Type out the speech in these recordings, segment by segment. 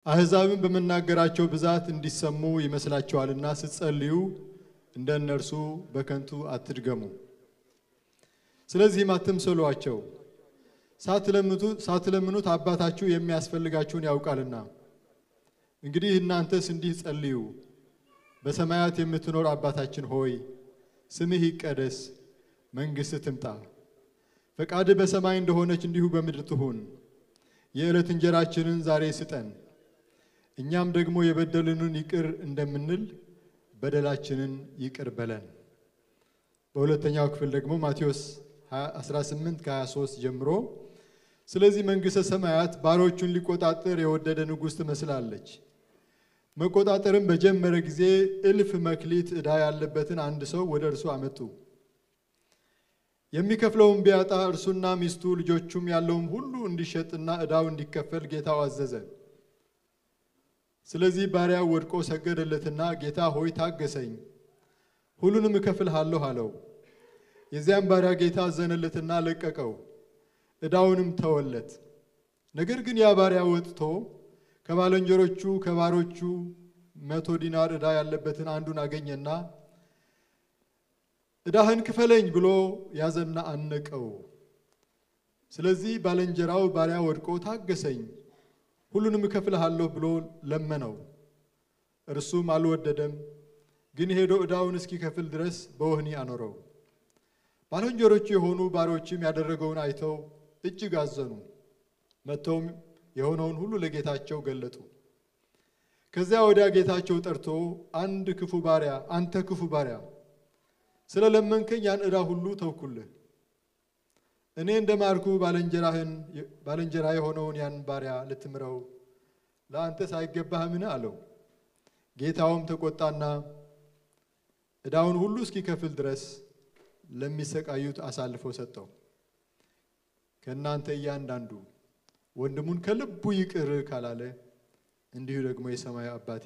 አሕዛብን በመናገራቸው ብዛት እንዲሰሙ ይመስላችኋልና ስትጸልዩ እንደነርሱ በከንቱ አትድገሙ። ስለዚህም አትምሰሏቸው፣ ሳትለምኑት አባታችሁ የሚያስፈልጋችሁን ያውቃልና። እንግዲህ እናንተስ እንዲህ ጸልዩ፣ በሰማያት የምትኖር አባታችን ሆይ ስምህ ይቀደስ፣ መንግሥትህ ትምጣ፣ ፈቃድህ በሰማይ እንደሆነች እንዲሁ በምድር ትሁን። የዕለት እንጀራችንን ዛሬ ስጠን፣ እኛም ደግሞ የበደሉንን ይቅር እንደምንል በደላችንን ይቅር በለን። በሁለተኛው ክፍል ደግሞ ማቴዎስ 18:23 ጀምሮ ስለዚህ መንግሥተ ሰማያት ባሮቹን ሊቆጣጠር የወደደ ንጉሥ ትመስላለች። መቆጣጠርም በጀመረ ጊዜ እልፍ መክሊት ዕዳ ያለበትን አንድ ሰው ወደ እርሱ አመጡ። የሚከፍለውን ቢያጣ እርሱና ሚስቱ ልጆቹም ያለውም ሁሉ እንዲሸጥና ዕዳው እንዲከፈል ጌታው አዘዘ። ስለዚህ ባሪያው ወድቆ ሰገደለትና ጌታ ሆይ ታገሰኝ፣ ሁሉንም እከፍልሃለሁ አለው። የዚያም ባሪያ ጌታ አዘነለትና ለቀቀው፣ ዕዳውንም ተወለት። ነገር ግን ያ ባሪያ ወጥቶ ከባልንጀሮቹ ከባሮቹ 100 ዲናር ዕዳ ያለበትን አንዱን አገኘና ዕዳህን ክፈለኝ ብሎ ያዘና አነቀው። ስለዚህ ባልንጀራው ባሪያ ወድቆ ታገሰኝ፣ ሁሉንም እከፍልሃለሁ ብሎ ለመነው። እርሱም አልወደደም፣ ግን ሄዶ ዕዳውን እስኪከፍል ድረስ በወህኒ አኖረው። ባልንጀሮቹ የሆኑ ባሮችም ያደረገውን አይተው እጅግ አዘኑ። መጥተውም የሆነውን ሁሉ ለጌታቸው ገለጡ። ከዚያ ወዲያ ጌታቸው ጠርቶ አንተ ክፉ ባሪያ ስለለመንከኝ ያን ዕዳ ሁሉ ተውኩልህ። እኔ እንደማርኩ ባልንጀራ የሆነውን ያን ባሪያ ልትምረው ለአንተስ አይገባህምን አለው። ጌታውም ተቆጣና ዕዳውን ሁሉ እስኪከፍል ድረስ ለሚሰቃዩት አሳልፎ ሰጠው። ከእናንተ እያንዳንዱ ወንድሙን ከልቡ ይቅር ካላለ እንዲሁ ደግሞ የሰማዩ አባቴ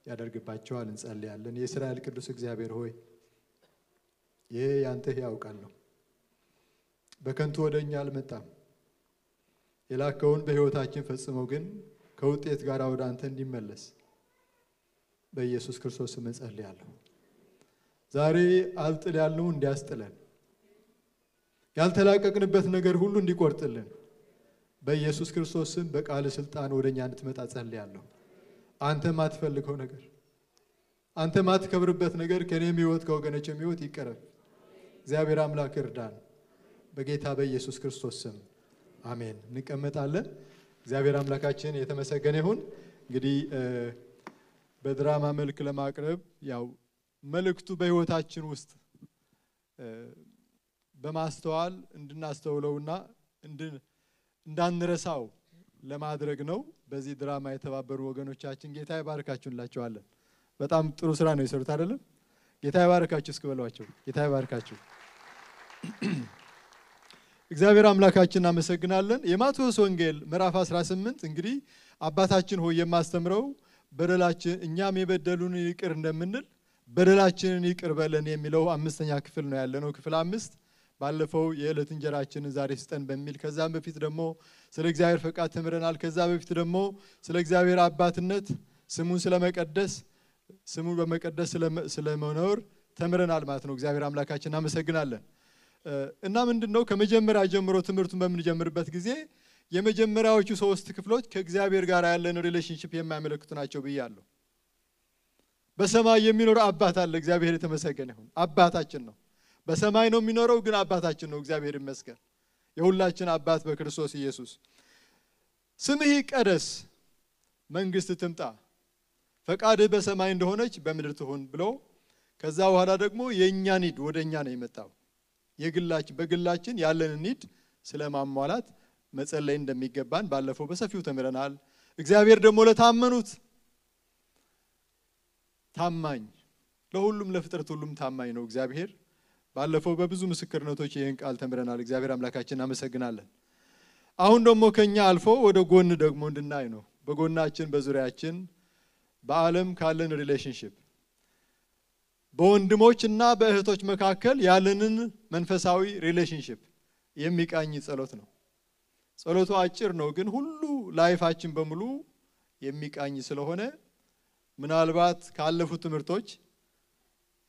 ያደርግባቸዋል። እንጸልያለን። የእስራኤል ቅዱስ እግዚአብሔር ሆይ ይሄ ያንተ ሕያው ቃል ነው። በከንቱ ወደኛ አልመጣም። የላከውን በሕይወታችን ፈጽመው ግን ከውጤት ጋር ወደ አንተ እንዲመለስ በኢየሱስ ክርስቶስ ስም እንጸልያለሁ። ዛሬ አልጥል ያልነው እንዲያስጥለን፣ ያልተላቀቅንበት ነገር ሁሉ እንዲቆርጥልን በኢየሱስ ክርስቶስ ስም በቃል ስልጣን ወደኛ እንድትመጣ ጸልያለሁ። አንተ ማትፈልገው ነገር፣ አንተ ማትከብርበት ነገር ከኔም ሕይወት ከወገኖቼም ሕይወት ይቀረፍ። እግዚአብሔር አምላክ እርዳን በጌታ በኢየሱስ ክርስቶስ ስም አሜን። እንቀመጣለን። እግዚአብሔር አምላካችን የተመሰገነ ይሁን። እንግዲህ በድራማ መልክ ለማቅረብ ያው መልእክቱ በሕይወታችን ውስጥ በማስተዋል እንድናስተውለውና እንዳንረሳው ለማድረግ ነው። በዚህ ድራማ የተባበሩ ወገኖቻችን ጌታ ይባርካችሁ እንላችኋለን። በጣም ጥሩ ስራ ነው የሰሩት አይደለም? ጌታ ይባርካችሁ እስኪ በሏቸው። ጌታ ይባርካችሁ። እግዚአብሔር አምላካችን እናመሰግናለን። የማቴዎስ ወንጌል ምዕራፍ 18 እንግዲህ አባታችን ሆይ የማስተምረው በደላችን እኛም የበደሉን ይቅር እንደምንል በደላችንን ይቅር በለን የሚለው 5ኛ ክፍል ነው ያለነው። ክፍል 5 ባለፈው የዕለት እንጀራችንን ዛሬ ስጠን በሚል ከዛም በፊት ደግሞ ስለ እግዚአብሔር ፈቃድ ተምረናል። ከዛ በፊት ደግሞ ስለ እግዚአብሔር አባትነት ስሙን ስለመቀደስ ስሙን በመቀደስ ስለመኖር ተምረናል ማለት ነው። እግዚአብሔር አምላካችን እናመሰግናለን። እና ምንድነው ከመጀመሪያ ጀምሮ ትምህርቱን በምንጀምርበት ጊዜ የመጀመሪያዎቹ 3 ክፍሎች ከእግዚአብሔር ጋር ያለን ሪሌሽንሺፕ የሚያመለክቱ ናቸው ብያለሁ። በሰማይ የሚኖር አባት አለ። እግዚአብሔር የተመሰገነ ይሁን። አባታችን ነው። በሰማይ ነው የሚኖረው፣ ግን አባታችን ነው። እግዚአብሔር ይመስገን። የሁላችን አባት በክርስቶስ ኢየሱስ። ስምህ ይቀደስ፣ መንግሥት ትምጣ፣ ፈቃድህ በሰማይ እንደሆነች በምድር ትሁን ብሎ ከዛ በኋላ ደግሞ የኛ ኒድ ወደኛ ነው የመጣው። በግላችን ያለን ኒድ ስለማሟላት መጸለይ እንደሚገባን ባለፈው በሰፊው ተምረናል። እግዚአብሔር ደግሞ ለታመኑት ታማኝ፣ ለሁሉም ለፍጥረት ሁሉም ታማኝ ነው እግዚአብሔር። ባለፈው በብዙ ምስክርነቶች ይህን ቃል ተምረናል። እግዚአብሔር አምላካችን እናመሰግናለን። አሁን ደግሞ ከኛ አልፎ ወደ ጎን ደግሞ እንድናይ ነው። በጎናችን በዙሪያችን በዓለም ካለን ሪሌሽንሺፕ በወንድሞችና በእህቶች መካከል ያለንን መንፈሳዊ ሪሌሽንሺፕ የሚቃኝ ጸሎት ነው። ጸሎቱ አጭር ነው፣ ግን ሁሉ ላይፋችን በሙሉ የሚቃኝ ስለሆነ ምናልባት ካለፉት ትምህርቶች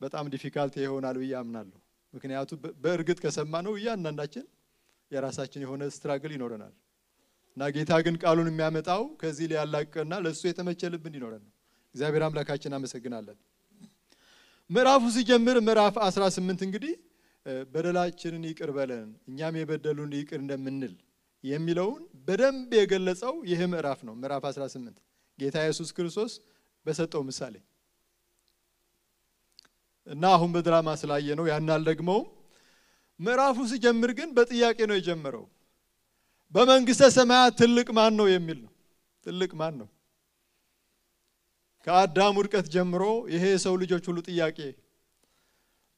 በጣም ዲፊካልት ይሆናል ብዬ አምናለሁ። ምክንያቱም በእርግጥ ከሰማነው እያንዳንዳችን የራሳችን የሆነ ስትራግል ይኖረናል እና ጌታ ግን ቃሉን የሚያመጣው ከዚህ ሊያላቅና ለሱ የተመቸ ልብ እንዲኖረን ነው። እግዚአብሔር አምላካችን አመሰግናለን። ምዕራፉ ሲጀምር ምዕራፍ 18 እንግዲህ በደላችንን ይቅር በለን እኛም የበደሉን ይቅር እንደምንል የሚለውን በደንብ የገለጸው ይህ ምዕራፍ ነው። ምዕራፍ 18 ጌታ ኢየሱስ ክርስቶስ በሰጠው ምሳሌ እና አሁን በድራማ ስላየ ነው ያናል ደግሞ ምዕራፉ ሲጀምር ግን በጥያቄ ነው የጀመረው። በመንግስተ ሰማያት ትልቅ ማን ነው የሚል ነው። ትልቅ ማን ነው? ከአዳም ውድቀት ጀምሮ ይሄ የሰው ልጆች ሁሉ ጥያቄ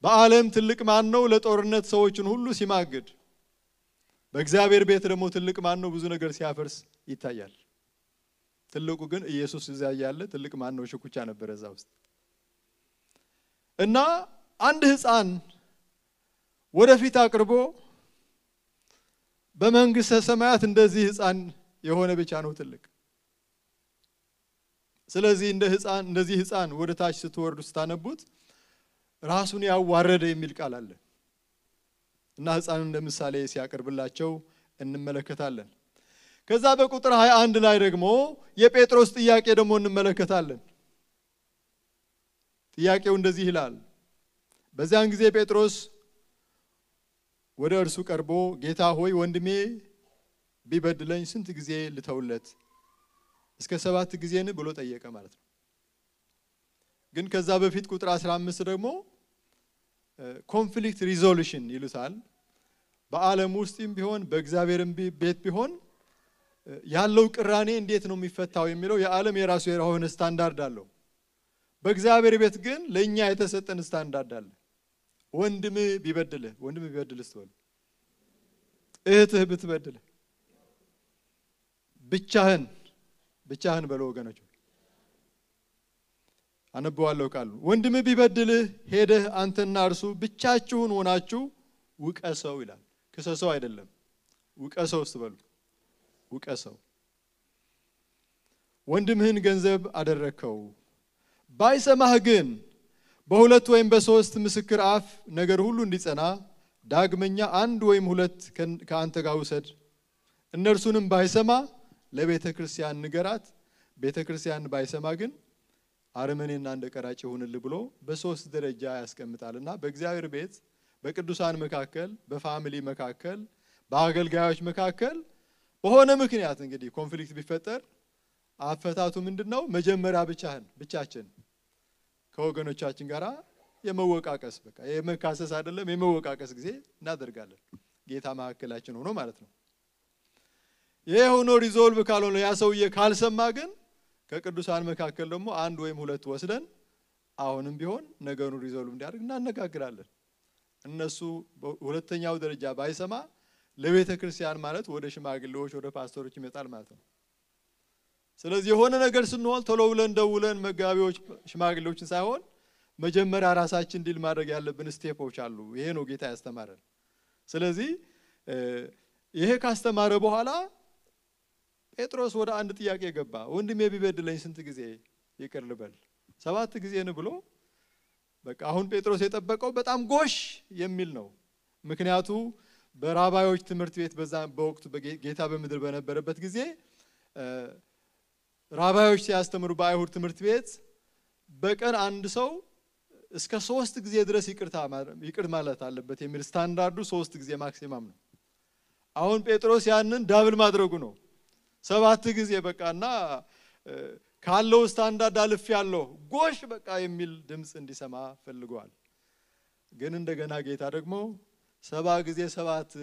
በዓለም ትልቅ ማን ነው? ለጦርነት ሰዎችን ሁሉ ሲማግድ በእግዚአብሔር ቤት ደግሞ ትልቅ ማን ነው? ብዙ ነገር ሲያፈርስ ይታያል። ትልቁ ግን ኢየሱስ እዚያ ያለ ትልቅ ማን ነው? ሽኩቻ ነበር እዛ ውስጥ እና አንድ ሕፃን ወደፊት አቅርቦ በመንግስተ ሰማያት እንደዚህ ሕፃን የሆነ ብቻ ነው ትልቅ። ስለዚህ እንደዚህ ሕፃን ወደ ታች ስትወርዱ ስታነቡት ራሱን ያዋረደ የሚል ቃል አለ እና ሕፃን እንደ ምሳሌ ሲያቀርብላቸው እንመለከታለን። ከዛ በቁጥር 21 ላይ ደግሞ የጴጥሮስ ጥያቄ ደግሞ እንመለከታለን። ጥያቄው እንደዚህ ይላል። በዚያን ጊዜ ጴጥሮስ ወደ እርሱ ቀርቦ ጌታ ሆይ ወንድሜ ቢበድለኝ ስንት ጊዜ ልተውለት? እስከ 7 ጊዜን ብሎ ጠየቀ ማለት ነው። ግን ከዛ በፊት ቁጥር 15 ደግሞ ኮንፍሊክት ሪዞሉሽን ይሉታል። በዓለም ውስጥም ቢሆን በእግዚአብሔርም ቤት ቢሆን ያለው ቅራኔ እንዴት ነው የሚፈታው የሚለው የዓለም የራሱ የሆነ ስታንዳርድ አለው። በእግዚአብሔር ቤት ግን ለኛ የተሰጠን ስታንዳርድ አለ። ወንድም ቢበድልህ ስትወል እህትህ ብትበድልህ ብቻህን በለው ወገኖች። አነበዋለሁ ቃሉ ወንድም ቢበድልህ ሄደህ አንተና እርሱ ብቻችሁን ሆናችሁ ውቀሰው ይላል። ክሰሰው አይደለም ውቀሰው ስትበሉ ውቀሰው። ወንድምህን ገንዘብ አደረከው ባይሰማህ ግን በሁለት ወይም በሶስት ምስክር አፍ ነገር ሁሉ እንዲጸና ዳግመኛ አንድ ወይም ሁለት ከአንተ ጋር ውሰድ። እነርሱንም ባይሰማ ለቤተ ክርስቲያን ንገራት። ቤተ ክርስቲያን ባይሰማ ግን አረመኔና እንደ ቀራጭ ይሁንልህ ብሎ በሶስት ደረጃ ያስቀምጣልና በእግዚአብሔር ቤት በቅዱሳን መካከል በፋሚሊ መካከል በአገልጋዮች መካከል በሆነ ምክንያት እንግዲህ ኮንፍሊክት ቢፈጠር አፈታቱ ምንድነው? መጀመሪያ ብቻችን ከወገኖቻችን ጋራ የመወቃቀስ በቃ የመካሰስ አይደለም የመወቃቀስ ጊዜ እናደርጋለን። ጌታ መካከላችን ሆኖ ማለት ነው። ይሄ ሆኖ ሪዞልቭ ካልሆነ ያ ሰውዬ ካልሰማ ግን ከቅዱሳን መካከል ደግሞ አንድ ወይም ሁለት ወስደን አሁንም ቢሆን ነገሩን ሪዞልቭ እንዲያደርግ እናነጋግራለን። እነሱ ሁለተኛው ደረጃ ባይሰማ ለቤተ ክርስቲያን ማለት ወደ ሽማግሌዎች ወደ ፓስተሮች ይመጣል ማለት ነው። ስለዚህ የሆነ ነገር ስንሆን ቶሎ ብለን ደውለን መጋቢዎች ሽማግሌዎችን ሳይሆን መጀመሪያ ራሳችን ዲል ማድረግ ያለብን ስቴፖች አሉ። ይሄ ነው ጌታ ያስተማረን። ስለዚህ ይሄ ካስተማረ በኋላ ጴጥሮስ ወደ አንድ ጥያቄ ገባ። ወንድሜ ቢበድለኝ ስንት ጊዜ ይቅር ልበል? 7 ጊዜ ነው ብሎ በቃ አሁን ጴጥሮስ የጠበቀው በጣም ጎሽ የሚል ነው። ምክንያቱ በራባዮች ትምህርት ቤት በወቅቱ ጌታ በምድር በነበረበት ጊዜ ራባዮች ሲያስተምሩ በአይሁድ ትምህርት ቤት በቀን አንድ ሰው እስከ 3 ጊዜ ድረስ ይቅር ማለት አለበት የሚል ስታንዳርዱ 3 ጊዜ ማክሲማም ነው። አሁን ጴጥሮስ ያንን ዳብል ማድረጉ ነው። 7 ጊዜ በቃና ካለው ስታንዳርድ አልፍ ያለው ጎሽ በቃ የሚል ድምጽ እንዲሰማ ፈልጓል። ግን እንደገና ጌታ ደግሞ 7 ጊዜ 7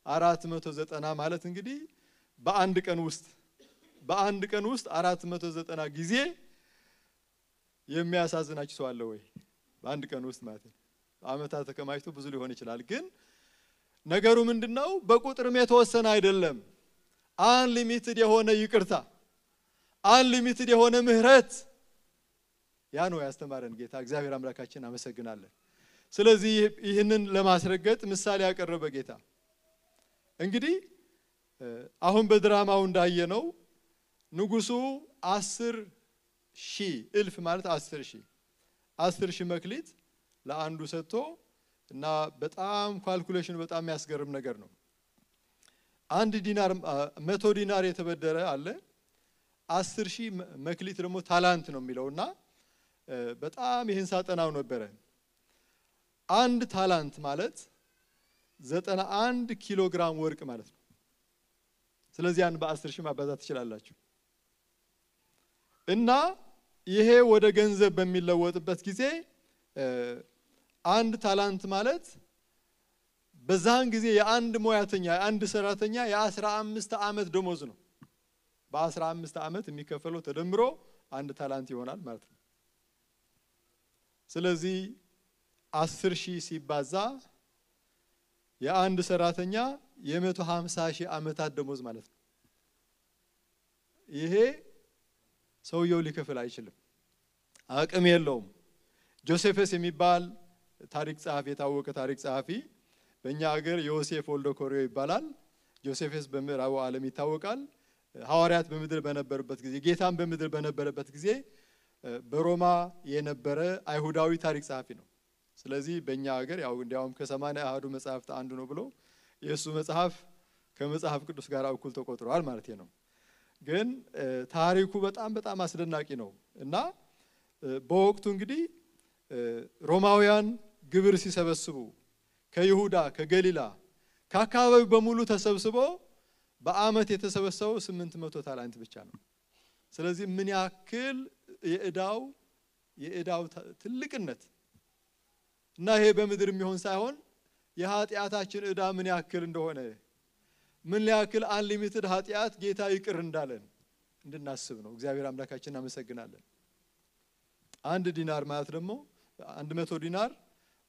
490 ማለት እንግዲህ በአንድ ቀን ውስጥ 490 ጊዜ የሚያሳዝናችሁ ሰው አለ ወይ? በአንድ ቀን ውስጥ ማለት ነው። አመታት ተከማችቶ ብዙ ሊሆን ይችላል። ግን ነገሩ ምንድነው? በቁጥርም የተወሰነ አይደለም። አንሊሚትድ የሆነ ይቅርታ፣ አንሊሚትድ የሆነ ምህረት ያ ነው ያስተማረን ጌታ። እግዚአብሔር አምላካችን አመሰግናለን። ስለዚህ ይህንን ለማስረገጥ ምሳሌ ያቀረበ ጌታ እንግዲህ አሁን በድራማው እንዳየነው ንጉሱ 10,000 እልፍ ማለት 10,000 መክሊት ለአንዱ ሰጥቶ እና በጣም ካልኩሌሽን በጣም የሚያስገርም ነገር ነው። 1 ዲናር 100 ዲናር የተበደረ አለ 10,000 መክሊት ደግሞ ታላንት ነው የሚለውና በጣም ይሄን ሳጠናው ነበር። 1 ታላንት ማለት 91 ኪሎ ግራም ወርቅ ማለት ነው። ስለዚህ ያን በ10,000 ማባዛት ትችላላችሁ። እና ይሄ ወደ ገንዘብ በሚለወጥበት ጊዜ 1 ታላንት ማለት በዛን ጊዜ የአንድ ሙያተኛ የአንድ ሰራተኛ የ15 ዓመት ደሞዝ ነው። በ15 ዓመት የሚከፈለው ተደምሮ 1 ታላንት ይሆናል ማለት ነው። ስለዚህ 10,000 ሲባዛ የአንድ ሰራተኛ የ150,000 ዓመታት ደሞዝ ማለት ነው። ይሄ ሰውየው ሊከፍል አይችልም፣ አቅም የለውም። ጆሴፈስ የሚባል ታሪክ ጸሐፊ የታወቀ ታሪክ ጸሐፊ በእኛ ሀገር ዮሴፍ ወልደ ኮሪዮ ይባላል። ጆሴፈስ በምዕራቡ ዓለም ይታወቃል። ሐዋርያት በምድር በነበሩበት ጊዜ ጌታም በምድር በነበረበት ጊዜ በሮማ የነበረ አይሁዳዊ ታሪክ ጸሐፊ ነው። ስለዚህ በእኛ ሀገር ያው እንዲያውም ከ80 አሐዱ መጽሐፍት አንዱ ነው ብሎ የእሱ መጽሐፍ ከመጽሐፍ ቅዱስ ጋር እኩል ተቆጥሯል ማለት ነው። ግን ታሪኩ በጣም አስደናቂ ነው እና በወቅቱ እንግዲህ ሮማውያን ግብር ሲሰበስቡ ከይሁዳ ከገሊላ ከአካባቢው በሙሉ ተሰብስቦ በአመት የተሰበሰበው 800 ታላንት ብቻ ነው። ስለዚህ ምን ያክል የዕዳው ትልቅነት እና ይሄ በምድር የሚሆን ሳይሆን የኃጢአታችን ዕዳ ምን ያክል እንደሆነ ምን ያክል አንሊሚትድ ኃጢአት ጌታ ይቅር እንዳለን እንድናስብ ነው። እግዚአብሔር አምላካችንን እናመሰግናለን። 1 ዲናር ማለት ደግሞ 100 ዲናር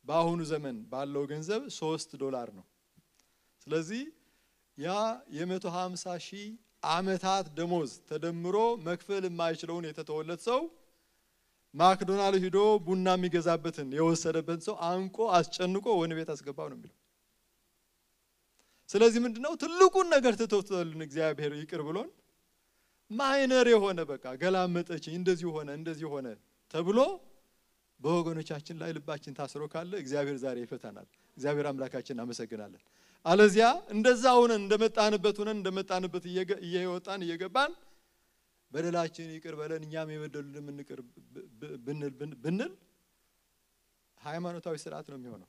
በአሁኑ ዘመን ባለው ገንዘብ $3 ነው። ስለዚህ ያ የ150,000 ዓመታት ደሞዝ ተደምሮ መክፈል የማይችለውን የተተወለት ሰው ማክዶናልድ ሄዶ ቡና የሚገዛበትን የወሰደበት ሰው አንቆ አስጨንቆ ወህኒ ቤት አስገባው ነው የሚለው። ስለዚህ ምንድነው ትልቁን ነገር ተተውቶልን እግዚአብሔር ይቅር ብሎን ማይነር የሆነ በቃ ገላመጠችኝ እንደዚህ ሆነ ተብሎ በወገኖቻችን ላይ ልባችን ታስሮ ካለ እግዚአብሔር ዛሬ ይፈታናል። እግዚአብሔር አምላካችንን እናመሰግናለን። አለዚያ እንደዛ ሆነን እንደመጣንበት እየወጣን እየገባን በደላችን ይቅር በለን እኛም የበደሉልን እንቅር ብንል ሃይማኖታዊ ስርዓት ነው የሚሆነው።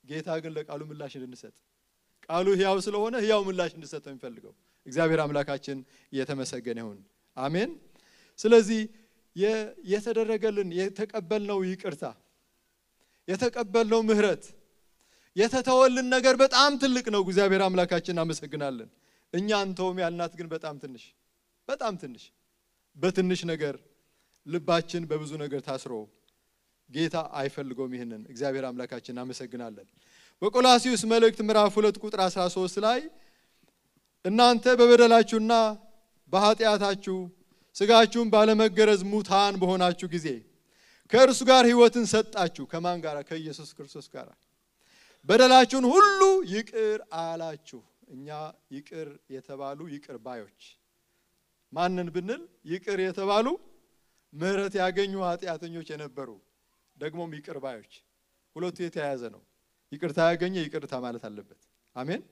ጌታ ግን ለቃሉ ምላሽ እንድንሰጥ ቃሉ ሕያው ስለሆነ ሕያው ምላሽ እንድንሰጥ ነው የሚፈልገው። እግዚአብሔር አምላካችን የተመሰገነ ይሁን። አሜን። ስለዚህ የተደረገልን የተቀበልነው ይቅርታ የተቀበልነው ምህረት የተተወልን ነገር በጣም ትልቅ ነው። እግዚአብሔር አምላካችንን እናመሰግናለን። እኛ አንተውም ያልናት ግን በጣም ትንሽ በትንሽ ነገር ልባችን በብዙ ነገር ታስሮ ጌታ አይፈልገውም። ይሄንን እግዚአብሔር አምላካችንን እናመሰግናለን። በቆላስይስ መልእክት ምዕራፍ 2 ቁጥር 13 ላይ እናንተ በበደላችሁና በኃጢአታችሁ ስጋችሁን ባለመገረዝ ሙታን በሆናችሁ ጊዜ ከእርሱ ጋር ሕይወትን ሰጣችሁ። ከማን ጋር? ከኢየሱስ ክርስቶስ ጋር። በደላችሁን ሁሉ ይቅር አላችሁ። እኛ ይቅር የተባሉ ይቅር ባዮች ማንን ብንል ይቅር የተባሉ ምህረት ያገኙ ኃጢአተኞች የነበሩ ደግሞም ይቅር ባዮች። ሁለቱ የተያያዘ ነው። ይቅርታ ያገኘ ይቅርታ ማለት አለበት። አሜን።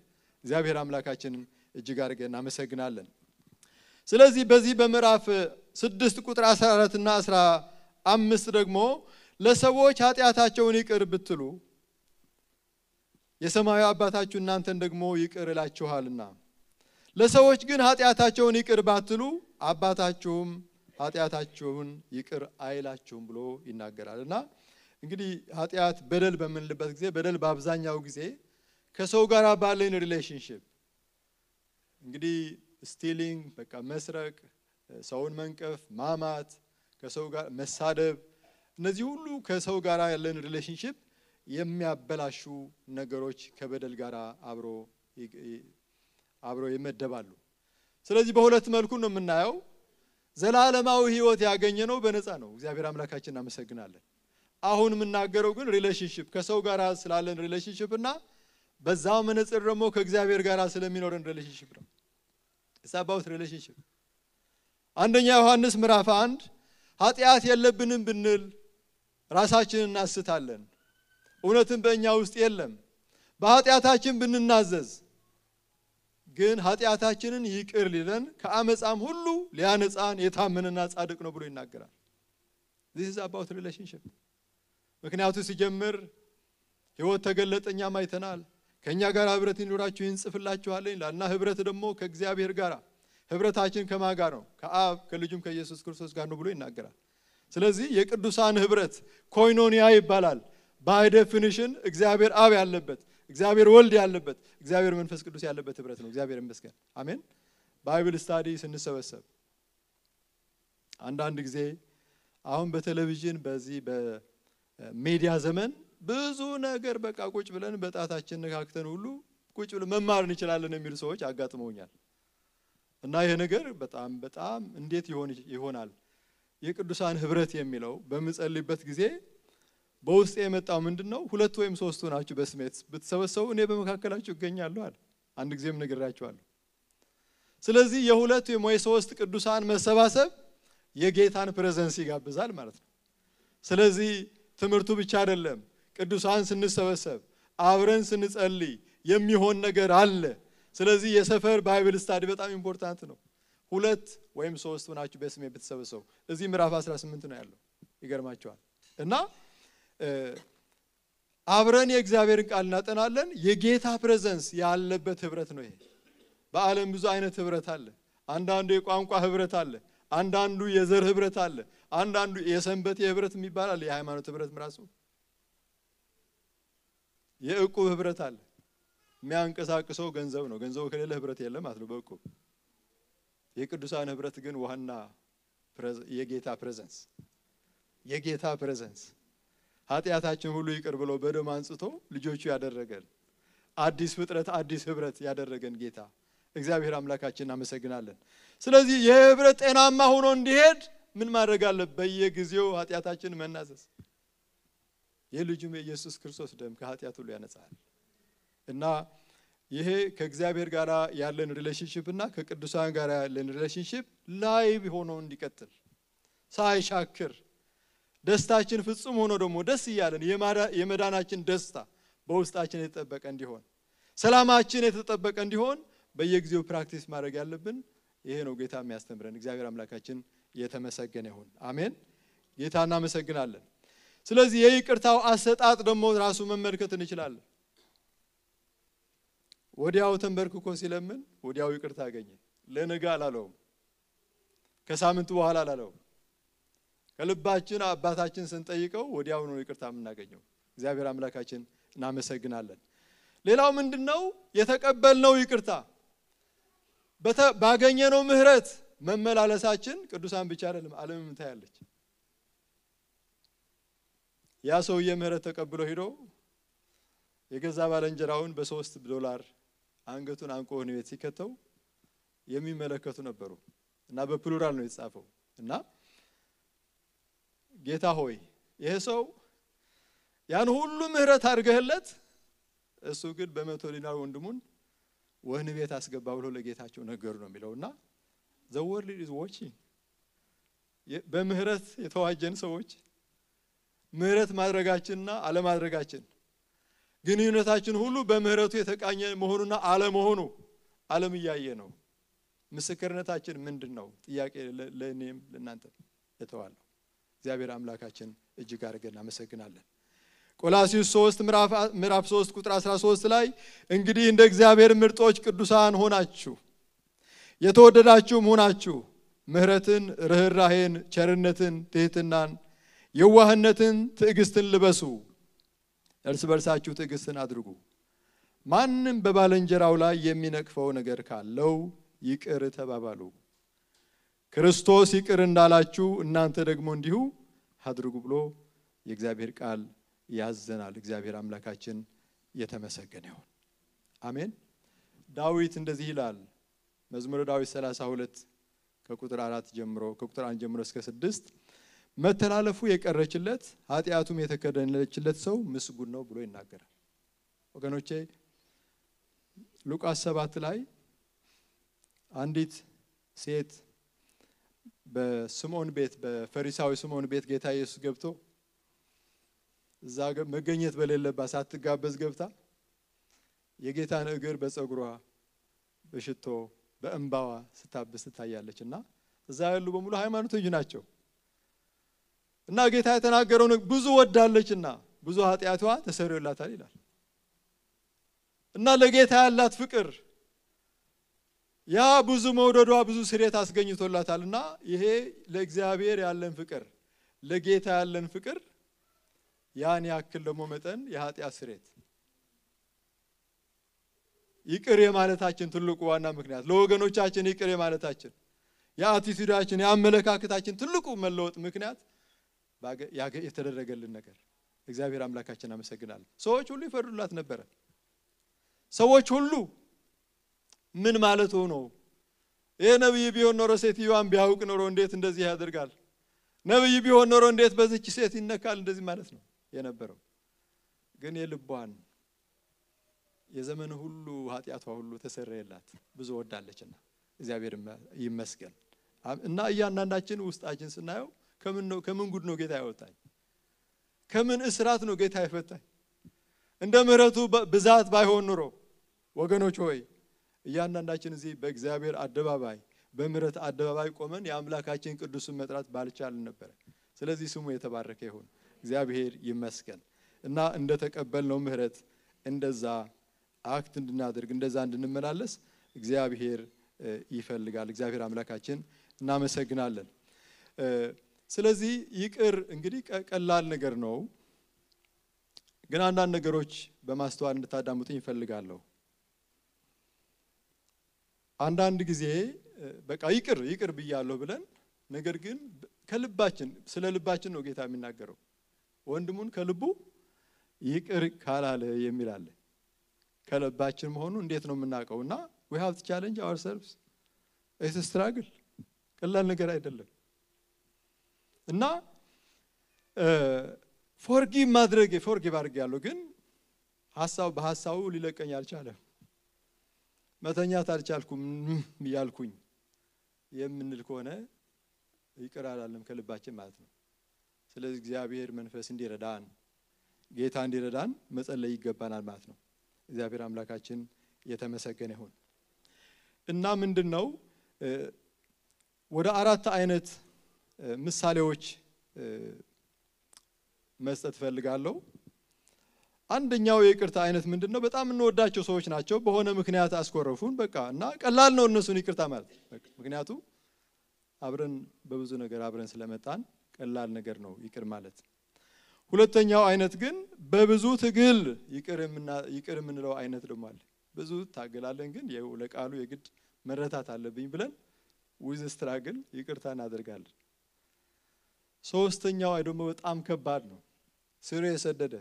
እግዚአብሔር አምላካችንን እጅግ አድርገን እናመሰግናለን። ስለዚህ በዚህ በምዕራፍ 6 ቁጥር 14 እና 15 ደግሞ ለሰዎች ኃጢአታቸውን ይቅር ብትሉ የሰማያዊ አባታችሁ እናንተን ደግሞ ይቅር ይላችኋልና ለሰዎች ግን ኃጢአታቸውን ይቅር ባትሉ አባታችሁም ኃጢአታችሁን ይቅር አይላችሁም ብሎ ይናገራልና እንግዲህ ኃጢአት በደል በምንልበት ጊዜ በደል በአብዛኛው ጊዜ ከሰው ጋር ባለን ሪሌሽንሺፕ እንግዲህ ስቲሊንግ በቃ መስረቅ፣ ሰውን መንቀፍ፣ ማማት፣ ከሰው ጋር መሳደብ እነዚህ ሁሉ ከሰው ጋር ያለን ሪሌሽንሺፕ የሚያበላሹ ነገሮች ከበደል ጋር አብሮ ይመደባሉ። ስለዚህ በሁለት መልኩ ነው የምናየው። ዘላለማዊ ሕይወት ያገኘነው በነፃ ነው። እግዚአብሔር አምላካችንን እናመሰግናለን። አሁን የምናገረው ግን ሪሌሽንሺፕ ከሰው ጋር ስላለን ሪሌሽንሺፕ እና በዛው መነጽር ደግሞ ከእግዚአብሔር ጋር ስለሚኖረን ሪሌሽንሺፕ ነው። It's about relationship. አንደኛ ዮሐንስ ምዕራፍ 1 ኃጢአት የለብንም ብንል ራሳችንን እናስታለን እውነትም በእኛ ውስጥ የለም በኃጢአታችን ብንናዘዝ ግን ኃጢአታችንን ይቅር ሊለን ከአመጻም ሁሉ ሊያነጻን የታመነና ጻድቅ ነው ብሎ ይናገራል this is about relationship ምክንያቱም ሲጀምር ሕይወት ተገለጠኛም አይተናል ከኛ ጋር ህብረት ይኖራችሁ ይንጽፍላችኋለኝ ላና ህብረት ደግሞ ከእግዚአብሔር ጋር ህብረታችን ከማን ጋር ነው ከአብ ከልጁም ከኢየሱስ ክርስቶስ ጋር ነው ብሎ ይናገራል ስለዚህ የቅዱሳን ህብረት ኮይኖኒያ ይባላል by definition እግዚአብሔር አብ ያለበት እግዚአብሔር ወልድ ያለበት እግዚአብሔር መንፈስ ቅዱስ ያለበት ህብረት ነው እግዚአብሔር ይመስገን አሜን ባይብል ስታዲ ስንሰበሰብ አንዳንድ ጊዜ አሁን በቴሌቪዥን በዚህ በሚዲያ ዘመን ብዙ ነገር በቃ ቁጭ ብለን በጣታችን ነካክተን ሁሉ ቁጭ ብለን መማር እንችላለን የሚሉ ሰዎች አጋጥመውኛል እና ይሄ ነገር በጣም እንዴት ይሆናል የቅዱሳን ህብረት የሚለው በመጸልይበት ጊዜ በውስጥ የመጣው ምንድነው ሁለት ወይም ሶስት ሆናችሁ በስሜት ብትሰበሰቡ እኔ በመካከላችሁ እገኛለሁ አለ አንድ ጊዜም ነግራችኋለሁ ስለዚህ የሁለት ወይም የሶስት ቅዱሳን መሰባሰብ የጌታን ፕሬዘንስ ይጋብዛል ማለት ነው ስለዚህ ትምርቱ ብቻ አይደለም ቅዱሳን ስንሰበሰብ አብረን ስንጸልይ የሚሆን ነገር አለ ስለዚህ የሰፈር ባይብል ስታዲ በጣም ኢምፖርታንት ነው ሁለት ወይም ሶስት ሆናችሁ በስሜ ብትሰበሰቡ እዚህ ምዕራፍ 18 ነው ያለው ይገርማችኋል እና አብረን የእግዚአብሔርን ቃል እናጠናለን የጌታ ፕሬዘንስ ያለበት ህብረት ነው ይሄ በአለም ብዙ አይነት ህብረት አለ አንዳንዱ የቋንቋ ህብረት አለ አንዳንዱ የዘር ህብረት አለ አንዳንዱ የሰንበት ህብረት የሚባል አለ የሃይማኖት ህብረት ራሱ የእቁብ ህብረት አለ የሚያንቀሳቅሰው ገንዘብ ነው ገንዘቡ ከሌለ ህብረት የለም ማለት ነው በእቁብ የቅዱሳን ህብረት ግን ዋና የጌታ ፕሬዘንስ ኃጢአታችን ሁሉ ይቅር ብሎ በደም አንጽቶ ልጆቹ ያደረገን አዲስ ፍጥረት አዲስ ህብረት ያደረገን ጌታ እግዚአብሔር አምላካችንን እናመሰግናለን ስለዚህ የህብረት ጤናማ ሆኖ እንዲሄድ ምን ማድረግ አለበት በየጊዜው ኃጢአታችንን መናዘዝ የልጁም የኢየሱስ ክርስቶስ ደም ከኃጢአት ሁሉ ያነጻል እና ይሄ ከእግዚአብሔር ጋር ያለን ሪሌሽንሺፕ እና ከቅዱሳን ጋር ያለን ሪሌሽንሺፕ ላይቭ ሆኖ እንዲቀጥል ሳይሻክር ደስታችን ፍጹም ሆኖ ደግሞ ደስ ይያለን የመዳናችን ደስታ በውስጣችን የተጠበቀ እንዲሆን ሰላማችን የተጠበቀ እንዲሆን በየጊዜው ፕራክቲስ ማድረግ ያለብን ይሄ ነው ጌታ የሚያስተምረን እግዚአብሔር አምላካችን የተመሰገነ ይሁን አሜን ጌታና እናመሰግናለን ስለዚህ የይቅርታው አሰጣጥ ደግሞ ራሱ መመልከት እንችላለን ወዲያው ተንበርክኮ ሲለምን ወዲያው ይቅርታ አገኘ ለነጋ አላለውም ከሳምንቱ በኋላ አላለውም ከልባችን አባታችን ስንጠይቀው ወዲያው ነው ይቅርታ የምናገኘው እግዚአብሔር አምላካችን እናመሰግናለን ሌላው ምንድነው የተቀበልነው ይቅርታ ባገኘነው ምህረት መመላለሳችን ቅዱሳን ብቻ አይደለም ዓለምም ታያለች ያ ሰውዬ ምህረት ተቀብሎ ሄዶ የገዛ ባለንጀራውን $3 አንገቱን አንቆ ነው ሲከተው የሚመለከቱ ነበሩ እና በፕሉራል ነው የተጻፈው እና ጌታ ሆይ ይሄ ሰው ያን ሁሉ ምህረት አድርገህለት እሱ ግን በ100 ዲናር ወንድሙን ወህኒ ቤት አስገባ ብሎ ለጌታቸው ነገሩ ነው የሚለውና the world is watching በምህረት የተዋጀን ሰዎች ምህረት ማድረጋችንና አለማድረጋችን ግንኙነታችን ሁሉ በምህረቱ የተቃኘ መሆኑና አለመሆኑ ዓለም ያየ ነው ምስክርነታችን ምንድነው ጥያቄ ለኔም ለናንተ የተዋለው እግዚአብሔር አምላካችን እጅግ አድርገን እናመሰግናለን ቆላስይስ 3 ምዕራፍ 3 ቁጥር 13 ላይ እንግዲህ እንደ እግዚአብሔር ምርጦች ቅዱሳን ሆናችሁ የተወደዳችሁም ሆናችሁ ምህረትን ርህራሄን ቸርነትን ትህትናን የዋህነትን ትዕግስትን ልበሱ እርስ በርሳችሁ ትዕግስትን አድርጉ ማንንም በባልንጀራው ላይ የሚነቅፈው ነገር ካለው ይቅር ተባባሉ ክርስቶስ ይቅር እንዳላችሁ እናንተ ደግሞ እንዲሁ አድርጉ ብሎ የእግዚአብሔር ቃል ያዘናል እግዚአብሔር አምላካችን የተመሰገነ ይሁን አሜን ዳዊት እንደዚህ ይላል መዝሙረ ዳዊት 32 ከቁጥር 4 ጀምሮ ከቁጥር 1 ጀምሮ እስከ 6 መተላለፉ የቀረችለት ኃጢያቱም የተከደነችለት ሰው ምስጉን ነው ብሎ ይናገራል ወገኖቼ ሉቃስ 7 ላይ አንዲት ሴት በስምዖን ቤት በፈሪሳዊ ስምዖን ቤት ጌታ ኢየሱስ ገብቶ እዛ መገኘት በሌለባት ሳትጋበዝ ገብታ የጌታን እግር በፀጉሯ በሽቶ በእንባዋ ስታብስ ትታያለችና እዛ ያሉ በሙሉ ሃይማኖተኞች ናቸው። እና ጌታ የተናገረው ብዙ ወዳለችና ብዙ ኃጢያቷ ተሰረየላታል ይላል። እና ለጌታ ያላት ፍቅር ያ ብዙ መውደዷ ብዙ ስሬት አስገኝቶላታልና ይሄ ለእግዚአብሔር ያለን ፍቅር ለጌታ ያለን ፍቅር ያን ያክል ደግሞ መጠን የኃጢያት ስሬት ይቅር የማለታችን ትልቁ ዋና ምክንያት ለወገኖቻችን ይቅር የማለታችን የአቲቲዩዳችን የአመለካከታችን ትልቁ መለወጥ ምክንያት የተደረገልን ነገር እግዚአብሔር አምላካችን አመሰግናለሁ። ሰዎች ሁሉ ይፈርዱላት ነበር። ሰዎች ሁሉ ምን ማለት ነው? ይሄ ነብይ ቢሆን ኖሮ ሴትዮዋን ቢያውቅ ኖሮ እንዴት እንደዚህ ያደርጋል? ነብይ ቢሆን ኖሮ እንዴት በዚች ሴት ይነካል? እንደዚህ ማለት ነው የነበረው። ግን የልቧን የዘመኑ ሁሉ ኃጢያቷ ሁሉ ተሰረየላት ብዙ ወዳለችና እግዚአብሔር ይመስገን። እና እያንዳንዳችን ውስጣችን ስናየው ከምን ጉድ ነው ጌታ ያወጣኝ? ከምን እስራት ነው ጌታ ይፈታኝ? እንደ ምህረቱ ብዛት ባይሆን ኖሮ ወገኖች ሆይ እያንዳንዳችን እዚህ በእግዚአብሔር አደባባይ በምህረት አደባባይ ቆመን የአምላካችን ቅዱስን መጥራት ባልቻልን ነበር። ስለዚህ ስሙ የተባረከ ይሁን። እግዚአብሔር ይመስገን። እና እንደተቀበልነው ምህረት እንደዛ አክት እንድናደርግ እንደዛ እንድንመላለስ እግዚአብሔር ይፈልጋል። እግዚአብሔር አምላካችን እናመሰግናለን። ስለዚህ ይቅር እንግዲህ ቀላል ነገር ነው። ግን አንዳንድ ነገሮች በማስተዋል እንድታዳምጡኝ ይፈልጋለሁ። አንዳንድ ጊዜ በቃ ይቅር ብያለሁ ብለን ነገር ግን ከልባችን ስለ ልባችን ነው ጌታ የሚናገረው። ወንድሙን ከልቡ ይቅር ካላለ የሚል አለ። ከልባችን መሆኑ እንዴት ነው የምናውቀውና we have to challenge ourselves. it's a struggle ቀላል ነገር አይደለም። እና ፎርጊቭ አድርጌያለሁ ግን በሐሳቡ ሊለቀኝ አልቻለም። መተኛት አልቻልኩም ያልኩኝ የምንል ከሆነ ይቅር አላለም ከልባችን ማለት ነው። ስለዚህ እግዚአብሔር መንፈስ እንዲረዳን ጌታ እንዲረዳን መጸለይ ይገባናል ማለት ነው። እግዚአብሔር አምላካችን የተመሰገነ ይሁን። እና ምንድነው ወደ አራት አይነት ምሳሌዎች መስጠት ፈልጋለሁ። አንደኛው የይቅርታ አይነት ምንድነው? በጣም እንወዳቸው ሰዎች ናቸው። በሆነ ምክንያት አስኮረፉን በቃ እና ቀላል ነው እነሱን ይቅርታ ማለት በቃ ምክንያቱም አብረን በብዙ ነገር አብረን ስለመጣን ቀላል ነገር ነው ይቅር ማለት። ሁለተኛው አይነት ግን በብዙ ትግል ይቅር የምንለው አይነት ደግሞ አለ። ብዙ ታገላለን ግን ለቃሉ የግድ መረታት አለብኝ ብለን with struggle ይቅርታ እናደርጋለን። ሶስተኛው ደግሞ በጣም ከባድ ነው። ስር የሰደደ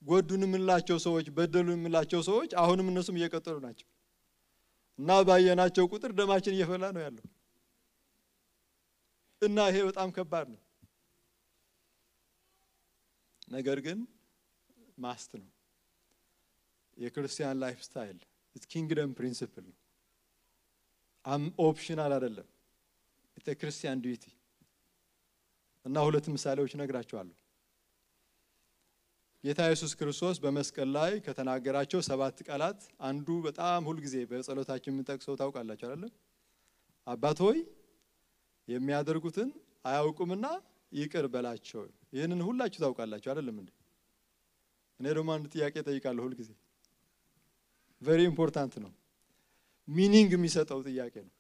ጎዱን የምንላቸው ሰዎች በደሉን የምንላቸው ሰዎች አሁንም እነሱም እየቀጠሉ ናቸው እና ባየናቸው ቁጥር ደማችን እየፈላ ነው ያለው እና ይሄ በጣም ከባድ ነው። ነገር ግን ማስት ነው የክርስቲያን ላይፍ ስታይል it's kingdom principle ነው። ኦፕሽናል አይደለም። it's a Christian duty። እና ሁለት ምሳሌዎች ነግራችኋለሁ። ጌታ ኢየሱስ ክርስቶስ በመስቀል ላይ ከተናገራቸው 7 ቃላት አንዱ በጣም ሁሉ ጊዜ በጸሎታችን የምንጠቅሰው ታውቃላችሁ አይደል? አባት ሆይ የሚያደርጉትን አያውቁምና ይቅር በላቸው። ይሄንን ሁላችሁ ታውቃላችሁ አይደለም እንዴ? እኔ ደግሞ አንድ ጥያቄ ጠይቃለሁ ሁሉ ጊዜ very important ነው። ሚኒንግ የሚሰጠው ጥያቄ ነው።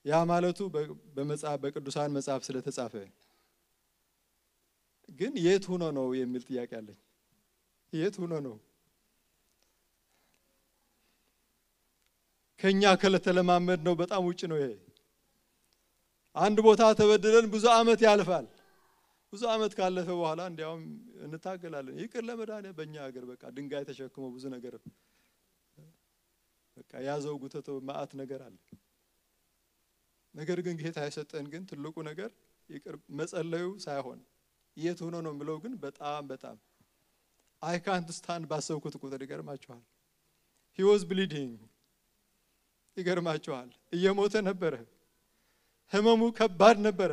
ያ ማለቱ በቅዱሳን መጽሐፍ ስለተጻፈ ግን የት ሆኖ ነው የሚል ጥያቄ አለኝ። የት ሆኖ ነው? ከኛ ከተለማመድ ነው በጣም ውጪ ነው ይሄ። አንድ ቦታ ተበድለን ብዙ አመት ያልፋል። ብዙ አመት ካለፈ በኋላ እንዲያውም እንታገላለን። ይቅር ለመዳን በእኛ ሀገር በቃ ድንጋይ ተሸክሞ ብዙ ነገር በቃ ያዘው ጉተቶ ማአት ነገር አለ። ነገር ግን ጌታ የሰጠን ግን ትልቁ ነገር ይቅር መጸለዩ ሳይሆን የት ሆኖ ነው ብለው ግን በጣም I can't stand ባሰብኩት ቁጥር ይገርማችኋል። he was bleeding ይገርማችኋል እየሞተ ነበረ ህመሙ ከባድ ነበረ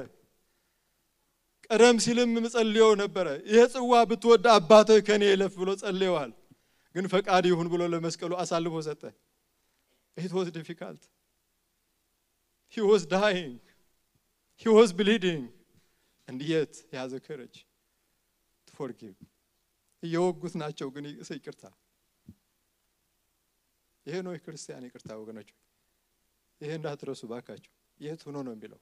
ቀደም ሲልም ጸልየው ነበረ ይሄ ጽዋ ብትወድ አባትህ ከኔ ይለፍ ብሎ ጸልየዋል ግን ፈቃድ ይሁን ብሎ ለመስቀሉ አሳልፎ ሰጠ it was difficult he was dying he was bleeding and yet he has the courage to forgive እየወጉት ናቸው ግን ይቅርታ ይሄ ነው የክርስቲያን ይቅርታ ወገኖች ይሄ እንዳትረሱ ባካችሁ የት ሆኖ ነው የሚለው